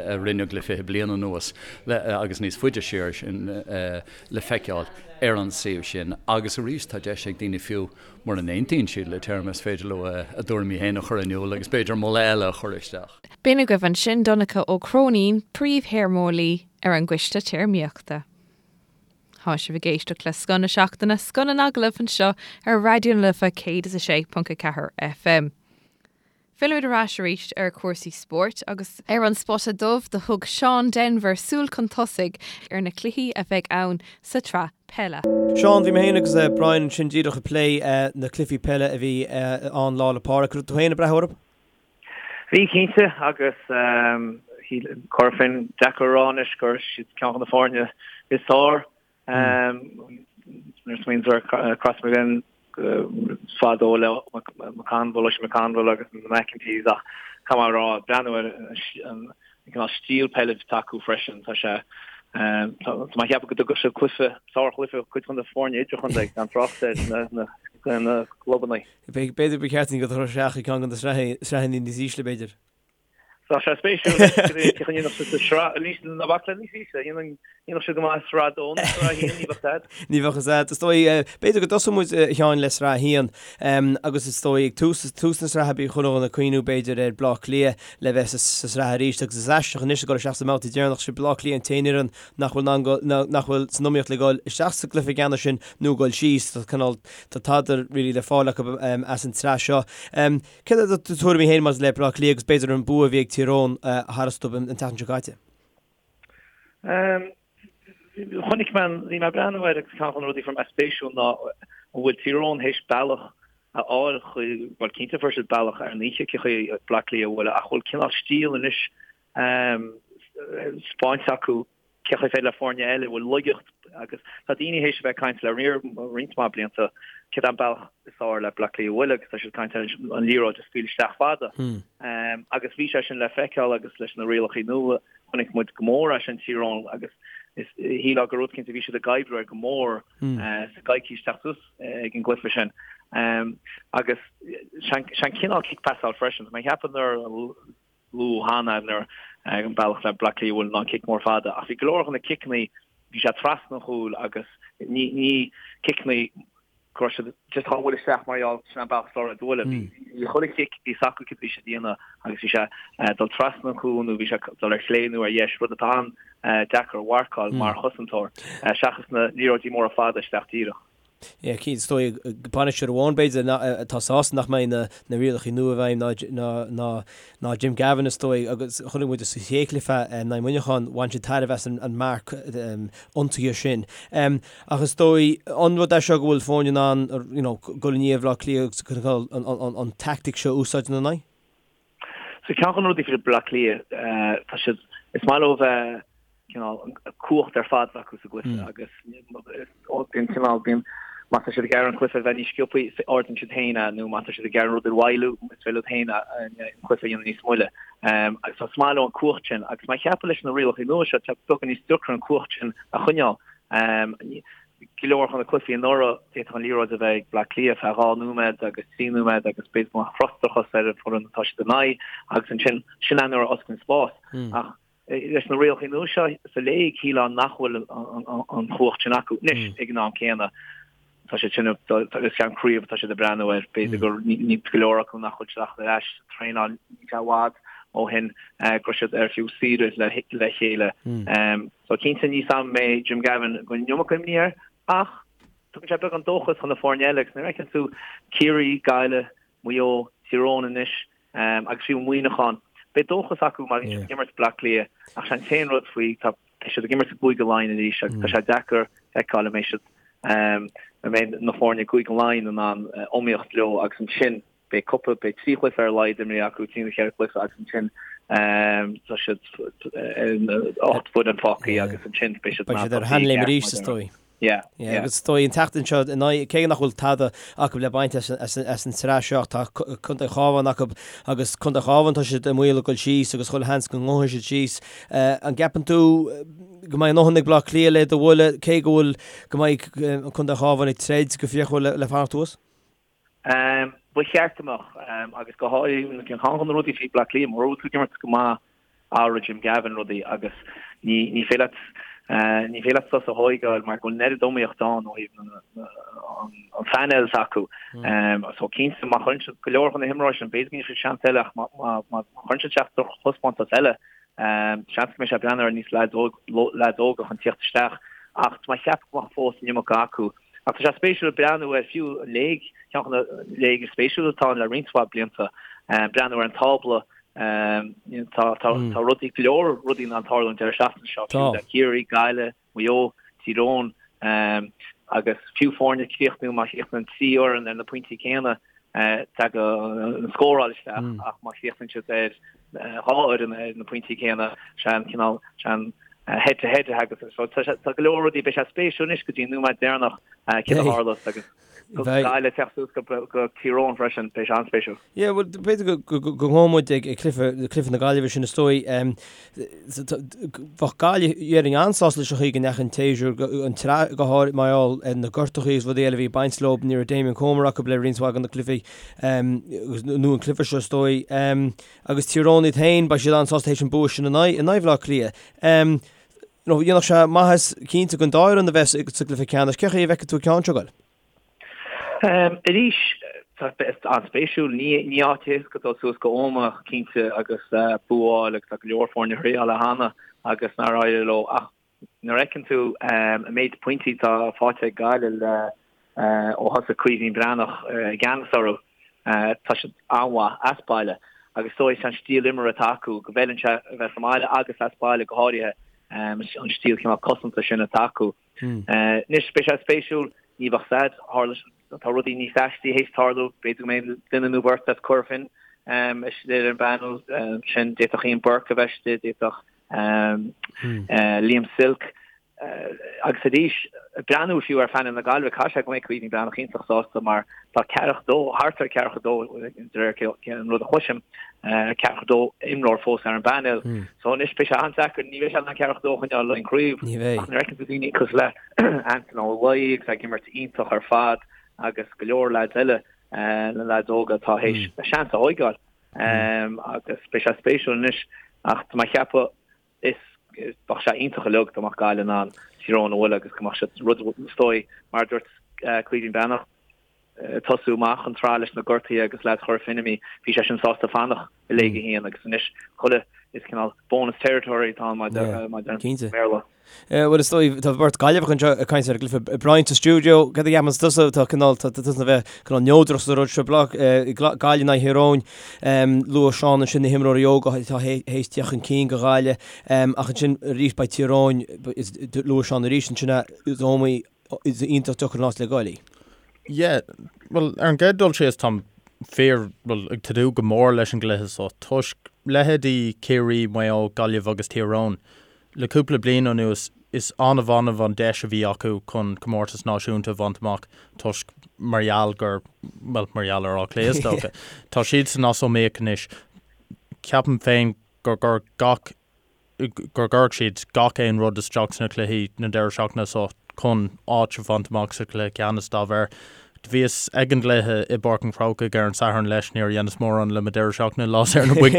a rinneadh le 20 bliain anuas agus níos faide siar sin le feiceáil ar an suíomh sin. Agus arís, tá deis ag daoine fiú mura n-aontaíonn siad le téarma, is féidir leo a dtuairimí féin a chur in iúl agus b'fhéidir moladh eile a chur isteach. B'in agaibh ansin Donncha Ó Cróinín, Príomh-Théarmeolaí ar an gCoiste Téarmaíochta. Tá sibh ag éisteacht le Scoth na Seachtaine, Scoth na nAgallamh anseo ar Raidió na Life 106.4 FM. Fillimid ar ais arís ar chúrsaí spóirt agus ar an Spota Dubh do thug Seán Denvir súil chun tosaigh ar na cluichí a bheidh ann sa tsraith peile. Seán, Bhí mé féin agus Brian ansin díreach ag plé na cluichí peile a bhí ann Lá 'le Pádraig. Raibh tú féin ag breathnú orthu? Bhí, cinnte, agus chuirfinn deacair a rá anois gur siad ceann de na foirne is fearr. Nuair a smaoiníonn tú ar Crossmaglen fadó le McConville, Oisín McConville agus na McEntees ach caithfidh mé a rá, breathnú ar an cineál stíl peile atá acu freisin, tá sé, tá mé ag ceapadh go dtugadh siad cluiche, sárchluiche cuid de na foirne idirchontae gan trácht ar na clubanna. B'fhéidir ba cheart dúinn dul isteach i gceann de na sraitheanna níos ísle, b'fhéidir. Tá sé spéisiúil cén chaoi a ndéanfadh siad sa sraith, níos, ná bac le níos ísle, dhéanfadh siad go maith i sraith a dó nó sraith a haon, ní bheadh a fhios a'd. Ní bheadh a fhios a'd. Is dóigh, b'fhéidir go dtosóidh muid, a Sheáin, le sraith a haon agus is dóigh ag tús, tús na sraithe bhí chuile dhuine ag cuimhniú b'fhéidir ar Bleá Cliath le bheith sa sraith arís agus is aisteach anois ag dul isteach sa mbabhta deireanach, sé Bleá Cliath an t-aon fhoireann nach bhfuil in ann, nach bhfuil san iomaíocht le dhul isteach sa gcluiche ceannais sin nó dhul síos. Tá cineál, Tá tada really le fáil acu as an tsraith seo. Céard iad do tuairimí féin maidir le Bleá Cliath agus b'fhéidir an bua a bhí ag Tír Eoghain tharstu an tseachtain seo caite? Chonaic mé, bhí mé ag breathnú air agus ceann de na rudaí a fuair mé spéisiúil ná an bhfuil Tír Eoghain théis bealach a fháil chuig, bhuel cinnte fuair siad bealach ar an oíche cé chaoi Bleá Cliath a bhualadh ach bhfuil cineál stíl anois spáinte acu cé chaoi féidir le foirne eile a bhfuil laigeacht agus tá daoine théis a bheith ag caint le roinnt mhaith blianta céard é an bealach is fearr le Bleá Cliath a bhualadh agus tá siad ag caint ar an liathróid a scaoileadh isteach fada agus bhí sé sin le feiceáil agus leis na rialacha nua chonaic muid go mór é sin Tír Eoghain agus is shílfeá gur rud cinnte bhí siad ag oibriú air go mór sa gcoicís teacht suas ag an gcluiche sin agus sé an cineál cic pasáil freisin. Tá mé ag ceapadh nuair luadh cheana nuair an bealach le Bleá Cliath a bhualadh ná an cic mór fada ach bhí go leor de na ciceanna bhí sé trasna an chúil agus ní ní ciceanna go raibh siad just á bhualadh isteach mar gheall sin an bealach is fearr a bhualadh. Bhí chuile chic bhí a fhios acu cad a bhí siad a dhéanamh agus bhí sé dul trasna an chúil nó bhí sé dul ar chlé nó ar dheis rud atá an-deacair a mharcáil mar chosantóir seachas na liathróidí móra fada isteach díreach. Yeah, cinnte, is dóigh, bainisteoir amháin b'fhéidir atá sásta nach mbeidh na rialacha nua i bhfeidhm ná Jim Gavin is dóigh agus chonaic muid sa chéad chluiche in aghaidh Mhuineacháin, bhain siad tairbhe as an marc ionsaithe sin. Ach is dóigh, an rud é seo go bhfuil foirne in ann you know dul i ndiaidh Bhaile Átha Cliath agus an tactic seo a úsáid ina n-aghaidh? So ceann de na rudaí faoi Bleá Cliath, tá siad, is maith leo bheith cineál cumhacht ar fad acu sa gcluiche agus bíonn cineál, bíonn, má tá siad ag iarraidh an cluiche a bheith níos sciobthaí, ardaíonn siad féin é nó má tá siad ag iarraidh an rud a mhoilliú, is féidir leo féin an cluiche a dhéanamh níos moille. Agus is maith leo an cumhacht sin agus má cheapann leis na rialacha nua seo, tá beagán níos deacra an cumhacht sin a choinneáil. Go leor de na cluichí anuraidh, d'fhéadfadh an liathróid a bheith ag Bleá Cliath feadh 2 nóiméad agus 3 nóiméad agus b'fhéidir go mbeadh frustrachas ar an bhfoireann atá siad in aghaidh agus ansin, sin é nuair a osclaíonn spás. Ach leis na rialacha nua seo sa léig, shílfeá nach bhfuil an chumhacht sin acu. Anois, ag an am céanna, tá siad sin, is ceann craobh atá siad ag breathnú air, b'fhéidir gur ní go leor acu nach bhfuil siad ach ar ais sa traenáil, níl sé i bhfad ó shin go raibh siad ar fiú saoire le chéile. So cinnte ní sam mé Jim Gavin go bhfuil an iomarca imní air ach tugann sé beagán dóchas chun na foirne eile agus nuair a fheiceann tú Ciarraí, Gaillimh, Maigh Eo, Tír Eoghain anois agus fiú Muineachán, beidh dóchas acu mar bhí siad ag imirt Bleá Cliath ach sé an t-aon rud faoi tá beidh siad ag imirt i gCúige Laighean arís agus tá sé deacair feiceáil an mbeidh siad an mbeidh na foirne i gCúige Laighean in ann iomaíocht leo agus ansin Beidh cúpla, beidh 3 chluiche ar a laghad imrithe acu, 3 nó 4 chluiche agus ansin tá siad 8 bhfoireann fágtha agus ansin beidh siad Beidh siad ar a sheanléim arís is dóigh. Yeah, yeah. Agus is dóigh an tseachtain seo in aghaidh, cé nach bhfuil tada acu le baint as an tsraith seo, tá Contae an Chabháin acu agus Contae an Chabháin tá siad i mbaol a dhul síos agus chuile sheans go ngabhfaidh siad síos. An gceapann tú go mbeidh a ndóthain ag Bleá Cliath le iad a bhualadh cé go bhfuil go mbeidh Contae an Chabháin ag troid go fíochmhar le fanacht thuas? Ba cheart go mbeadh, agus go háirithe ceann de na rudaí faoi Bleá Cliath, mura bhfuil tú ag imirt go maith athróidh Jim Gavin rudaí agus ní ní féidir leat ní féidir leat sos a thóigeáil mar go bhfuil an oiread iomaíocht ann ó thaobh an phainéil s'acu. So cinnte má chuireann siad go leor de na himreoirí sin b'fhéidir go ndéanfaidh siad seans eile ach má má chuireann siad isteach drochthaispeántas eile seans go mbeidh sé ag breathnú ar níos leaids óga chun tíocht isteach ach tá mé ag ceapadh go mbeadh fós an iomarca acu. Ach tá sé spéisiúil breathnú ar fiú an léig, ceann de na léig is spéisiúla atá ann le roinnt mhaith blianta, breathnú ar an tábla, tá tá rudaí, go leor rudaí in ann tarlú an deireadh seachtaine seo, fiú le Ciarraí, Gaillimh, Maigh Eo, Tír Eoghain agus fiú foirne ag críochnú, má chríochnaíonn 3 fhoireann ar na pointí céanna, tagann an scóráil isteach ach má chríochnaíonn siad ar 2 fhoireann ar na pointí céanna, sé an cineál, sé an head to head a thagas. So tá go leor rudaí, beidh sé spéisiúil anois go dtí an nóiméad deireanach céard a tharlós agus Gaillimh ag teacht suas go Tír Eoghain freisin, beidh sé an-spéisiúil. Yeah, bhuel, b'fhéidir go ngabhfaidh muid ag cluiche na Gaillimhe sin is dóigh. Bheadh Gaillimh, déarfainn, an-sásta leis an chaoi go ndeachaigh an tséasúr, an tsraith go háirithe, mar gheall ar na gortuithe agus rudaí eile a bhí ag baint leo, ní raibh Damien Comer acu le roinnt mhaith de na cluichí, nó an cluiche seo is dóigh. Agus Tír Eoghain iad féin, beidh siad an-sásta théis an bua sin in aghaidh Bhaile Átha Cliath. Dhéanfadh sé maitheas cinnte don dá fhoireann a bheith sa gcluiche ceannais. Cén chaoi a bhfeiceann tú an ceann seo ag goil? Arís, tá an-spéisiúil. Ní áit éasca dul suas go Ómaigh, cinnte, agus bua a fháil agus tá go leor foirne a thriáil é cheana agus nár éirigh leo. Ach nuair a fheiceann tú an méid pointí atá faighte ag Gaillimh le ó thosaigh Caoimhín Breathnach i gceannas orthu, tá siad an-mhaith as baile agus is dóigh an stíl imeartha atá acu go bhfeileann sé a bheith sa mbaile agus as baile go háirithe, an stíl cineál cosanta sin atá acu. Anois, beidh sé spéisiúil, ní bheadh said, tharla, tá rudaí níos aistí théis tarlú, b'fhéidir go mbeidh duine nó beirt as Cora Finne istigh ar an bpainéal sin, d'fhéadfadh Ian Burke a bheith istigh, d'fhéadfadh Liam Silke, Agus arís, breathnú fiú ar phainéal na Gaillimhe, caithfidh sé go mbeidh Caoimhín Breathnach iontach sásta mar tá ceathracha dó, thart ar ceathracha dó de réir an rud a chloisim, ceathracha dó imreoir fós ar an bpainéal. So anois beidh sé an-deacair, ní bheidh sé in ann ceathracha dó a choinneáil le an craobh ach nuair a fheiceann tú daoine cosúil le Antaine Ó Laoi agus ag imirt iontach ar fad agus go leor leaids eile, na leaids óga atá théis a seans a thóigeáil agus beidh sé spéisiúil anois ach tá mé ag ceapadh Is bheadh sé iontach uilig dá mbeadh Gaillimh in ann Tír Eoghain a bhualadh agus go mbeadh siad rud is dóigh, mar a dúirt Caoimhín Breathnach, tosú amach an tsraith leis na gortuithe agus leaids Chora Finne imithe, bhí sé sin sásta fanacht i Léig 1 agus anois chuile is cineál bonus territory atá ann mar a deir an Béarla. Bhuel is dóigh tá beirt Gaillimheach anseo ag caint ar an gcluiche. Brian sa stiúideo, cad a cheapann tusa? Tá cineál, tá tusa a bheith cineál neodrach sa rud seo, Gaillimh in aghaidh Thír Eoghain. Luaigh Seán ansin na himreoirí óga atá théis teacht chun cinn do Ghaillimh ach ansin arís beidh Tír Eoghain, luaigh Seán arís ansin é, is iomaí, is iontach deacair an áit le goil í. Yeah, bhuel ar an gcéad dul síos táim fíor, bhuel ag tnúth go mór leis an gcluiche seo toisc leithéidí Ciarraí, Maigh Eo, Gaillimh agus Tír Eoghain. Le cúpla bliain anuas, is annamh annamh an deis a bhí acu chun comórtas náisiúnta a bhaint amach toisc mar gheall gur, bhuel, mar gheall ar Áth Cliath is dócha. Tá siadsan as iomaíocht anois. Ceapaim féin gur gur gach, gur gcuirfidh siad gach aon rud isteach sna cluichí na deireadh seachtaine seo chun áit a bhaint amach sa chluiche ceannais dá bharr. Do bhíos ag an gcluiche i bPáirc an Chrócaigh ar an Satharn leis, níor dheineas mórán le mo deireadh seachtaine lá saor na boic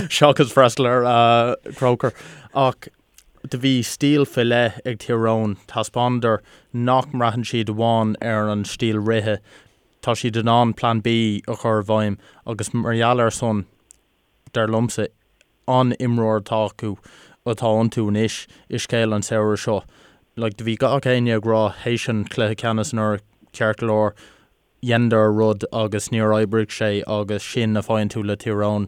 seachas freastal ar Croker. Ach do bhí stíl faoi leith ag Tír Eoghain, thaispeánadar nach mbraitheann siad amháin ar an stíl rithe, tá siad in ann Plan B a chur i bhfeidhm agus mar gheall ar san, dar liomsa, an-imreoir atá acu, atá iontu anois i scéal an samhradh seo. Like, do bhí gach éinne ag rá théis an chluiche ceannais anuraidh, ceart go leor, dheineadar a rud agus níor oibrigh sé agus sin a faigheann tú le Tír Eoghain,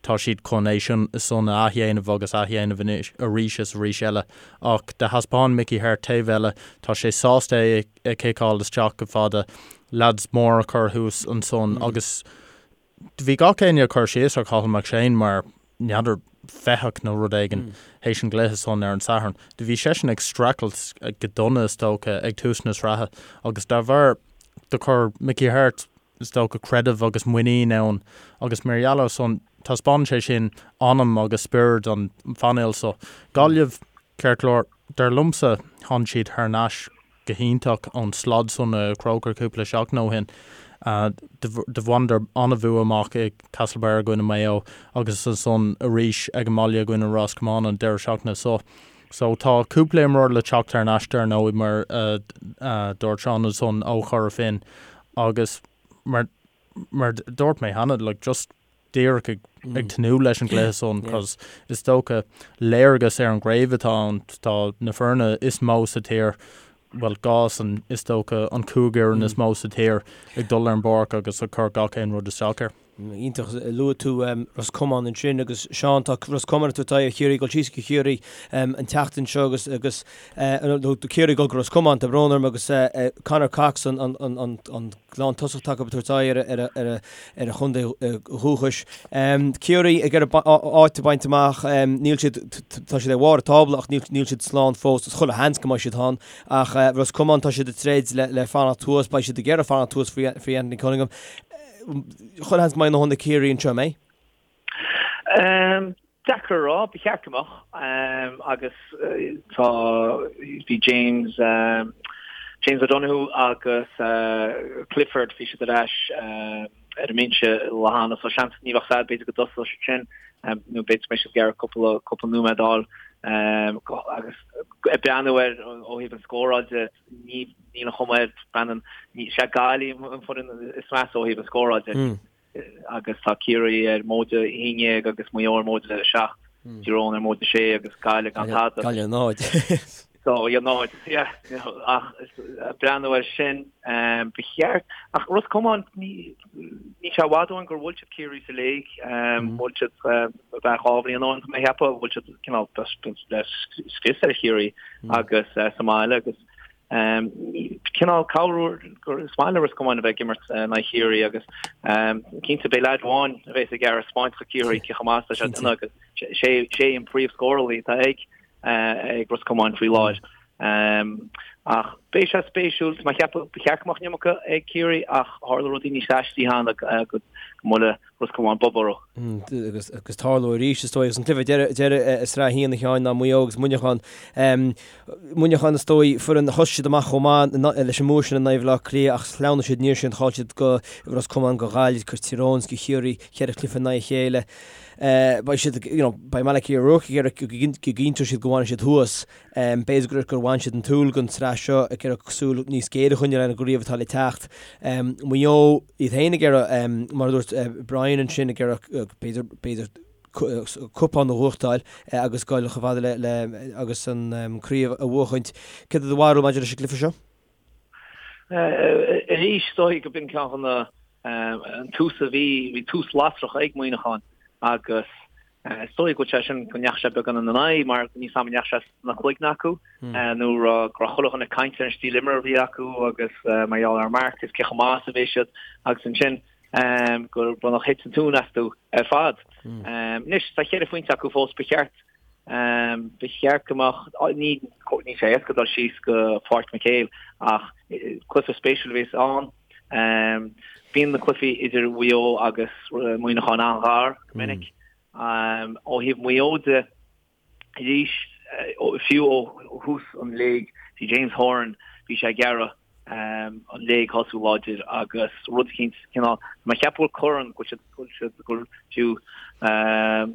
tá siad chun é sin san a athdhéanamh agus athdhéanamh anois arís is arís eile. Ach do thaispeáin Mickey Harte taobh eile, tá sé sásta é a chiceáil isteach go fada, leaids mór a chur thuas ansan agus Do bhí gach éinne ag cur síos ar Cathal McShane mar, n'fheadar, fathach nó rud éigin théis an gcluiche san ar an Satharn. Do bhí seisean ag streachailt go dona, is dócha, ag tús na sraithe agus dá bharr do chuir Mickey Harte, is dócha, creideamh agus muinín ann agus mar gheall ar san, taispeánann sé sin anam agus spiorad an phainéil so. Gaillimh, ceart go leor, dar liomsa, tháinig siad thar n-ais go hiontach ón slad san i Croker cúpla seachtain ó shin. Do bhaineadar an-bhua amach i Castlebar i gcoinne Maigh Eo agus ansan arís ag an mbaile i gcoinne Ros Comáin an deireadh seachtaine so. So tá cúpla imreoir le teacht thar n-ais dar ndóigh mar a dúirt Seán ansan ó Chora Finne agus mar mar dúirt mé cheana like just díreach ag ag tnúth leis an gcluiche san cos is dócha léargas ar an gcraobh atá ann tá na foirne is mó sa tír bhuel dhá san is dócha an chúig fhoireann is mó sa tír ag dul ar an bpáirc agus ag cur gach aon rud isteach air. Iontach. Luaigh tú Ros Comáin ansin agus Seán, tá Ros Comáin ag tabhairt aghaidh ar Chiarraí, ag dul síos go Ciarraí an tseachtain seo agus agus nó Ciarraí ag dul go Ros Comáin, tá brón orm, agus Conor Cox an an lántosach atá acu ag tabhairt aghaidh ar ar ar a chontae dhúchais. Ciarraí ag iarraidh áit a bhaint amach, níl siad, tá siad ar bharr an tábla ach níl níl siad slán fós, is chuile sheans go mbeidh siad ann ach Ros Comáin tá siad ag troid le le fanacht thuas, beidh siad ag iarraidh fanacht thuas faoi faoi Anthony Cunningham. Chuile sheans go mbeidh a ndóthain ag Ciarraí anseo, an mbeidh? Deacair a rá, ba cheart go mbeadh. Agus tá, bhí James, James O'Donoghue agus Clifford, bhí siad ar ais ar an mbinse lá cheana so seans ní bheadh fad b'fhéidir go dtosódh siad sin nó b'fhéidir go mbeidh siad ag iarraidh cúpla, cúpla nóiméad a fháil agus ag breathnú air ó thaobh an scóráil de, Ní, níl an chuma air, Brendan, ní, sé Gaillimh an foireann is measa ó thaobh an scóráil de. Agus tá Ciarraí ar móide 11 agus Maigh Eo ar móide 7, Tír Eoghain ar móide 6 agus Gaillimh gan tada. Gaillimh 0. So, yeah, 0, yeah, you know, ach breathnú air sin, ba cheart, ach Ros Comáin, ní, níl sé i bhfad ó shin gur bhuail siad Ciarraí sa léig, bhuail siad, b'fhéidir 2 bhliain ó shin, tá mé ag ceapadh, bhuail siad cineál le scrios ar Chiarraí agus sa mbaile agus cineál cabhrú gur is maith le Ros Comáin a bheith ag imirt in aghaidh Chiarraí agus cinnte beidh leaid amháin a bheas ag iarraidh spáint do Chiarraí cé chomh maith is atá sé agus sé sé an príomhscórálaí atá ag ag Ros Comáin faoi láthair. Ach beidh sé spéisiúil, tá mé ag ceapadh ba cheart go mbeadh an iomarca ag Ciarraí ach tharla rudaí níos aistí cheana go mbuailfidh Ros Comáin bob orthu. Agus agus tarlóidh arís is dóigh agus an cluiche deireadh i Sraith 1 a Sheáin ná Maigh Eo agus Muineachán. Muineachán is dóigh foireann thosaigh siad amach chomh maith leis an mbua sin in aghaidh Bhaile Átha Cliath ach shleamhnaigh siad aniar sin chaill siad go Ros Comáin go Gaillimh go Tír Eoghain go Chiarraí cheithre chluiche in aghaidh a chéile. Beidh siad you know beidh Malachy O'Rourke ag iarraidh go gcinnteoidh siad go bhfanfaidh siad thuas. B'fhéidir gur gur bhain siad an tsúil den tsraith seo ag iarraidh súil níos géire a choinneáil ar an gcraobh atá le teacht. Maigh Eo iad féin ag iarraidh, mar a dúirt Brian ansin, ag iarraidh b'fhéidir b'fhéidir cupán a bhuachtáil agus dul chomh fada le le agus an craobh a bhuachaint. Céard é do bharúil maidir leis an gcluiche seo? Arís, is dóigh go b'in ceann de na an tús a bhí, bhí tús lasrach ag Muineachán agus Is dóigh go bhfuil sé sin, go ndeachaigh sé beagán ina n-aghaidh mar níl a fhios agam an ndeachaigh sé sna cloigne acu nó go raibh chuile dhuine ag caint ar an stíl imeartha a bhí acu agus mar gheall ar Mark is cé chomh maith is a bhí siad agus ansin gur b'fhéidir thit an tóin astu ar fad. Anois tá cheithre phointe acu fós, ba cheart ba cheart go mbeadh, ní níl sé éasca dul síos go Páirc McHale ach cluiche spéisiúil a bheas ann. Bíonn na cluichí idir Mhaigh Eo agus Muineachán an-ghar go minic. Ó thaobh Mhaigh Eo de, arís, fiú ó thús an léig, bhí James Horan, bhí sé ag iarraidh an léig a thosú láidir agus rud eicínt, cineál, tá mé ag ceapadh go bhfuil corn, go bhfuil siad, go bhfuil siad, go bhfuil fiú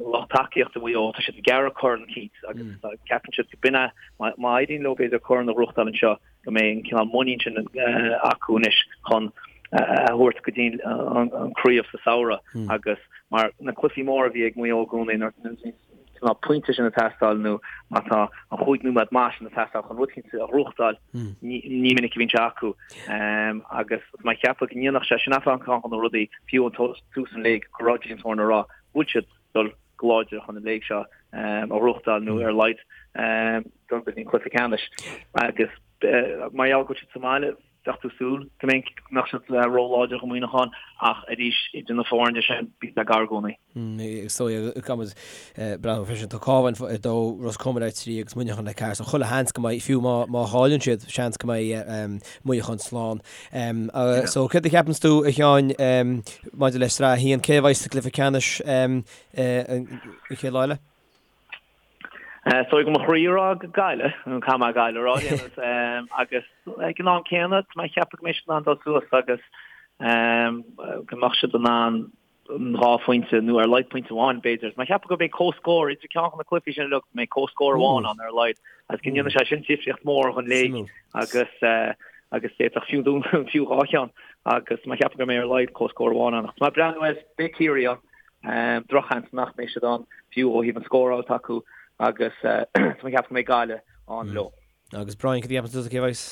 lucht tacaíochta Mhaigh Eo, tá siad ag iarraidh corn eicínt agus ceapann siad go b'in é, má éiríonn leo b'fhéidir corn a ghnóthachtáil anseo, go mbeidh an cineál muinín sin acu anois chun a thabhairt go dtí an craobh sa samhradh agus mar na cluichí móra a bhí ag Maigh Eo i gcónaí nuair a bhí cineál pointe sin ag teastáil nó má tá an chúig nóiméad maith sin ag teastáil chun rud eicínt a ghnóthachtáil ní minic a bhíonn sé acu agus tá mé ag ceapadh go ndéanfadh sé sin ceann de na rudaí fiú an tús an léig go raibh James Horan ag rá go bhfuil siad dul go láidir chun an léig seo a ghnóthachtáil nó ar a laghad dul go dtí an cluiche ceannais agus mar gheall go bhfuil siad sa mbaile bheadh tú súil go mbeidh go mbeadh siad ró-láidir do Mhuineachán ach arís idir na foirne sin bíonn sé gar i gcónaí. Is dóigh caithfimid breathnú freisin tá Cabhán ar dó, Ros Comáin ar 3 agus Muineachán ar 4 so chuile sheans go mbeidh fiú má má chailleann siad seans go mbeidh Muineachán slán. So céard a cheapanns tú a Sheáin maidir le Sraith 1 cé a bheidh sa gcluiche ceannais an chéad lá eile? Is dóigh go mo chroí a rá go Gaillimh, caithfidh mé Gaillimh a rá, agus ag an am céanna tá mé ag ceapadh go mbeidh siad in ann dul suas agus. Go mbeadh siad in ann an 2 phointe nó ar a laghad pointe amháin b'fhéidir. Mé ag ceapadh go mbeidh comhscór idir ceann de na cluichí sin uilig, go mbeidh comhscór amháin ann ar a laghad agus go ndéanfaidh sé sin difríocht mhór don léig agus agus d'fhéadfadh fiú dún fiú 2 cheann agus mé ag ceapadh go mbeidh ar a laghad comhscór amháin ann. Ach tá mé ag breathnú air, beidh Ciarraí ann, drochsheans nach mbeidh siad ann fiú ó thaobh an scóráil atá acu agus tá mé ag ceapadh go mbeidh Gaillimh ann leo. Agus Brian, cad a cheapann tusa cé a bheas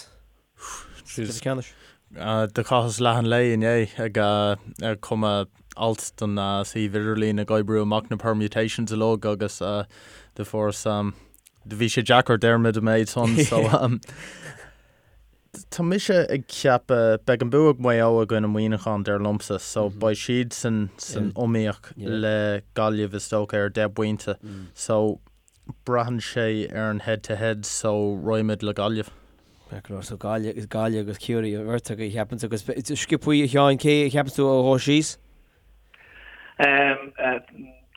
sa chluiche ceannais? Do chaitheas leath an lae inné ag cumadh alt don suíomh idirlín ag oibriú amach na permutations uilig agus do fuaireas do bhí sé deacair déarfaimid an méid san so tá mise ag ceapadh beidh an bua ag Maigh Eo i gcoinne Muineachán dar liomsa so beidh siadsan san iomaíocht le Gaillimh is dócha ar 10 bpointe so Braitheann sé ar an head to head so raghaimid le Gaillimh. Ceart go leor, so Gaillimh, Gaillimh agus Ciarraí an bheirt agaibh a cheapann agus sciobthaí a Sheáin, cé a cheapann tú a ghabhfaidh síos?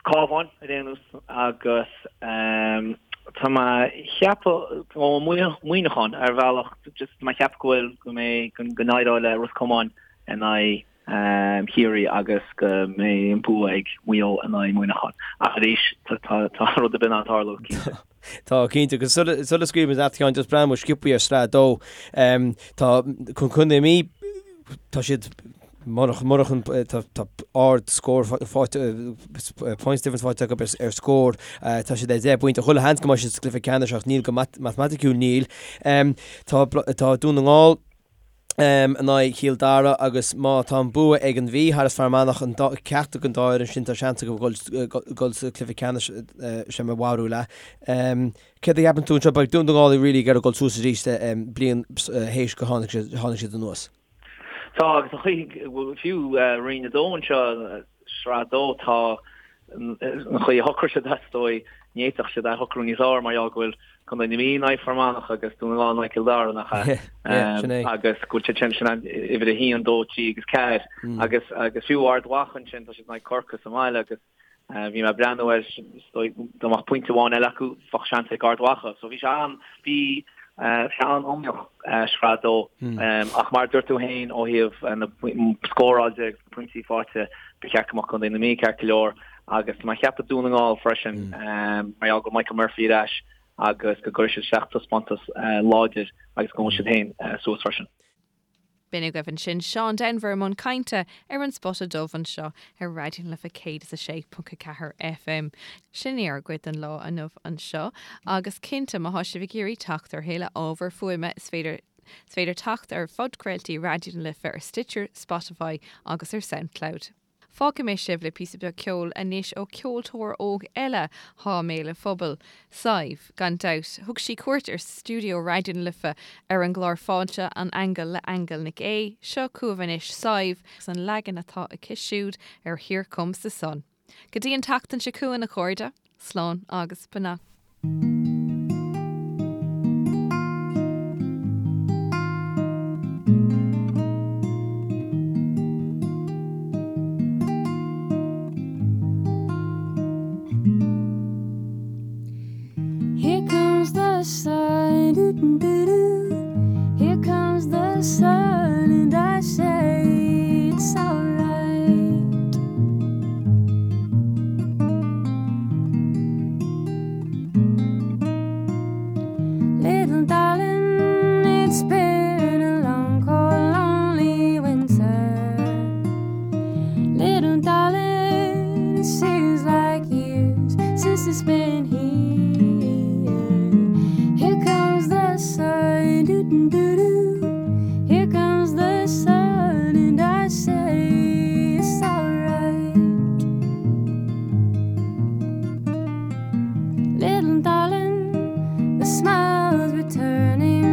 Cabhán ar aon nós agus tá mé ag ceapadh ó Muineachán ar bhealach just tá mé ag ceapadh go bhfuil go mbeidh go n-éireoidh le Ros Comáin in aghaidh Chiarraí agus go mbeidh an bua ag Maigh Eo in aghaidh Mhuineacháin. Ach arís, tá rud ar bith in ann tarlú, cinnte. Tá, cinnte. Agus sula scaoilfimid leat, a Sheáin, just breathnóidh muid sciobthaí ar Sraith 2. Tá Contae na Mí, tá siad, murach, murach an, tá ard scór faighte, points difference faighte acu ar scór. Tá siad ar 10 bpointe. Chuile sheans go mbeidh siad sa gcluiche ceannais ach níl go matamaiticiúil níl. Tá, tá Dún na nGall, in aghaidh Chill Dara agus má tá an bua ag an Mhí thar is Fear Manach, an dá, ceachtar den dá fhoireann sin, tá seans acu dul sa chluiche ceannais, sé mo bharúil é. Céard a cheapann tú anseo? Beidh Dún na nGall really ag iarraidh dul suas arís bliain théis go tháinig siad, tháinig siad anuas. Tá agus an chaoi, fiú Roinn 2 anseo, Sraith 2, tá an chaoi a shocraigh siad is dóigh, ní fhéadfadh siad é a shocrú níos fearr mar gheall go bhfuil Contae na Mí in aghaidh Fear Manach agus Dún na nGall in aghaidh Cill Dara, nach ea? Sin é. Agus go bhfuil siad sin, sin uimhir a haon, dó, trí agus ceathair. Agus, agus fiú Ard Mhacha ansin, tá siad in aghaidh Corcaigh sa mbaile agus bhí mé ag breathnú air, is dóigh, dá mbeadh pointe amháin eile acu, bheadh seans ag Ard Mhacha. So bhí sé an, bhí sé an-iomaíoch, Sraith 2. Ach mar a dúirt tú féin, ó thaobh na scóráil de agus na pointí faighte, ba cheart go mbeadh Contae na Mí ceart go leor. Agus tá mé ag ceapadh Dún na nGall freisin, mar gheall go bhfuil Michael Murphy ar ais agus go gcuirfidh siad isteach taispeántas láidir agus go ngabhfaidh siad féin suas freisin. B'in agaibh ansin Seán Denvir i mbun cainte ar an Spota Dubh anseo ar Raidió na Life 106.4 FM. Sin í ár gcuid den lá inniu anseo agus cinnte má thá sibh ag iarraidh teacht ar thuilleadh ábhar fuaime is féidir is féidir teacht ar phodchraoltaí Raidió na Life ar Stitcher, Spotify agus ar Soundcloud. Fágfaidh mé sibh le píosa beag ceoil anois ó ceoltóir óg eile thá i mbéal an phobail, Sadhbh, gan dabht. Thug sí cuairt ar stiúideo Raidió na Life ar an gclár Fáilte an Aingil le Aingeal Nic Aoidh. Seo chugaibh anois Sadhbh agus an leagan atá aici siúd ar Here Comes the Sun. Go dtí an tseachtain seo chugainn a chairde, slán agus beannacht. Here comes the sun, doo doo doo. Here comes the sun, and I say it's alright. Little darling, it's been a long, cold, lonely winter. Little darling, it seems like years since it's been here. Here comes the sun, doo doo doo. Here comes the sun, and I say it's alright. Little darling, the smiles returning.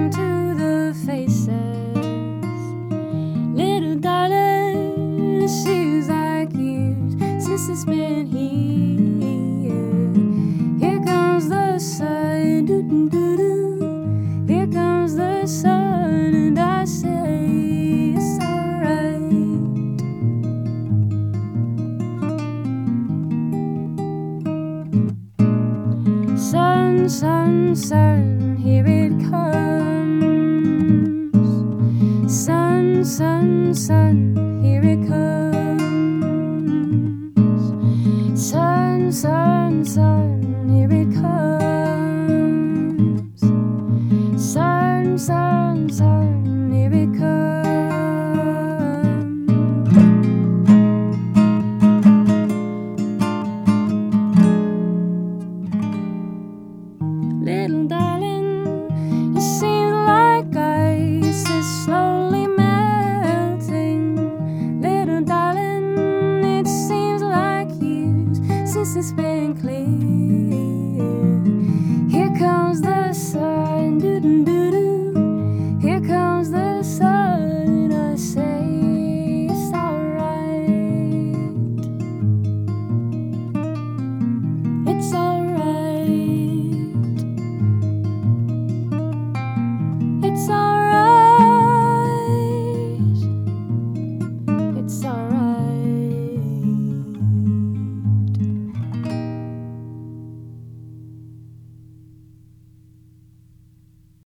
Sun, sun, sun, here it comes. Little darling, it seems like ice is slowly melting. Little darling, it seems like years since it's been clear.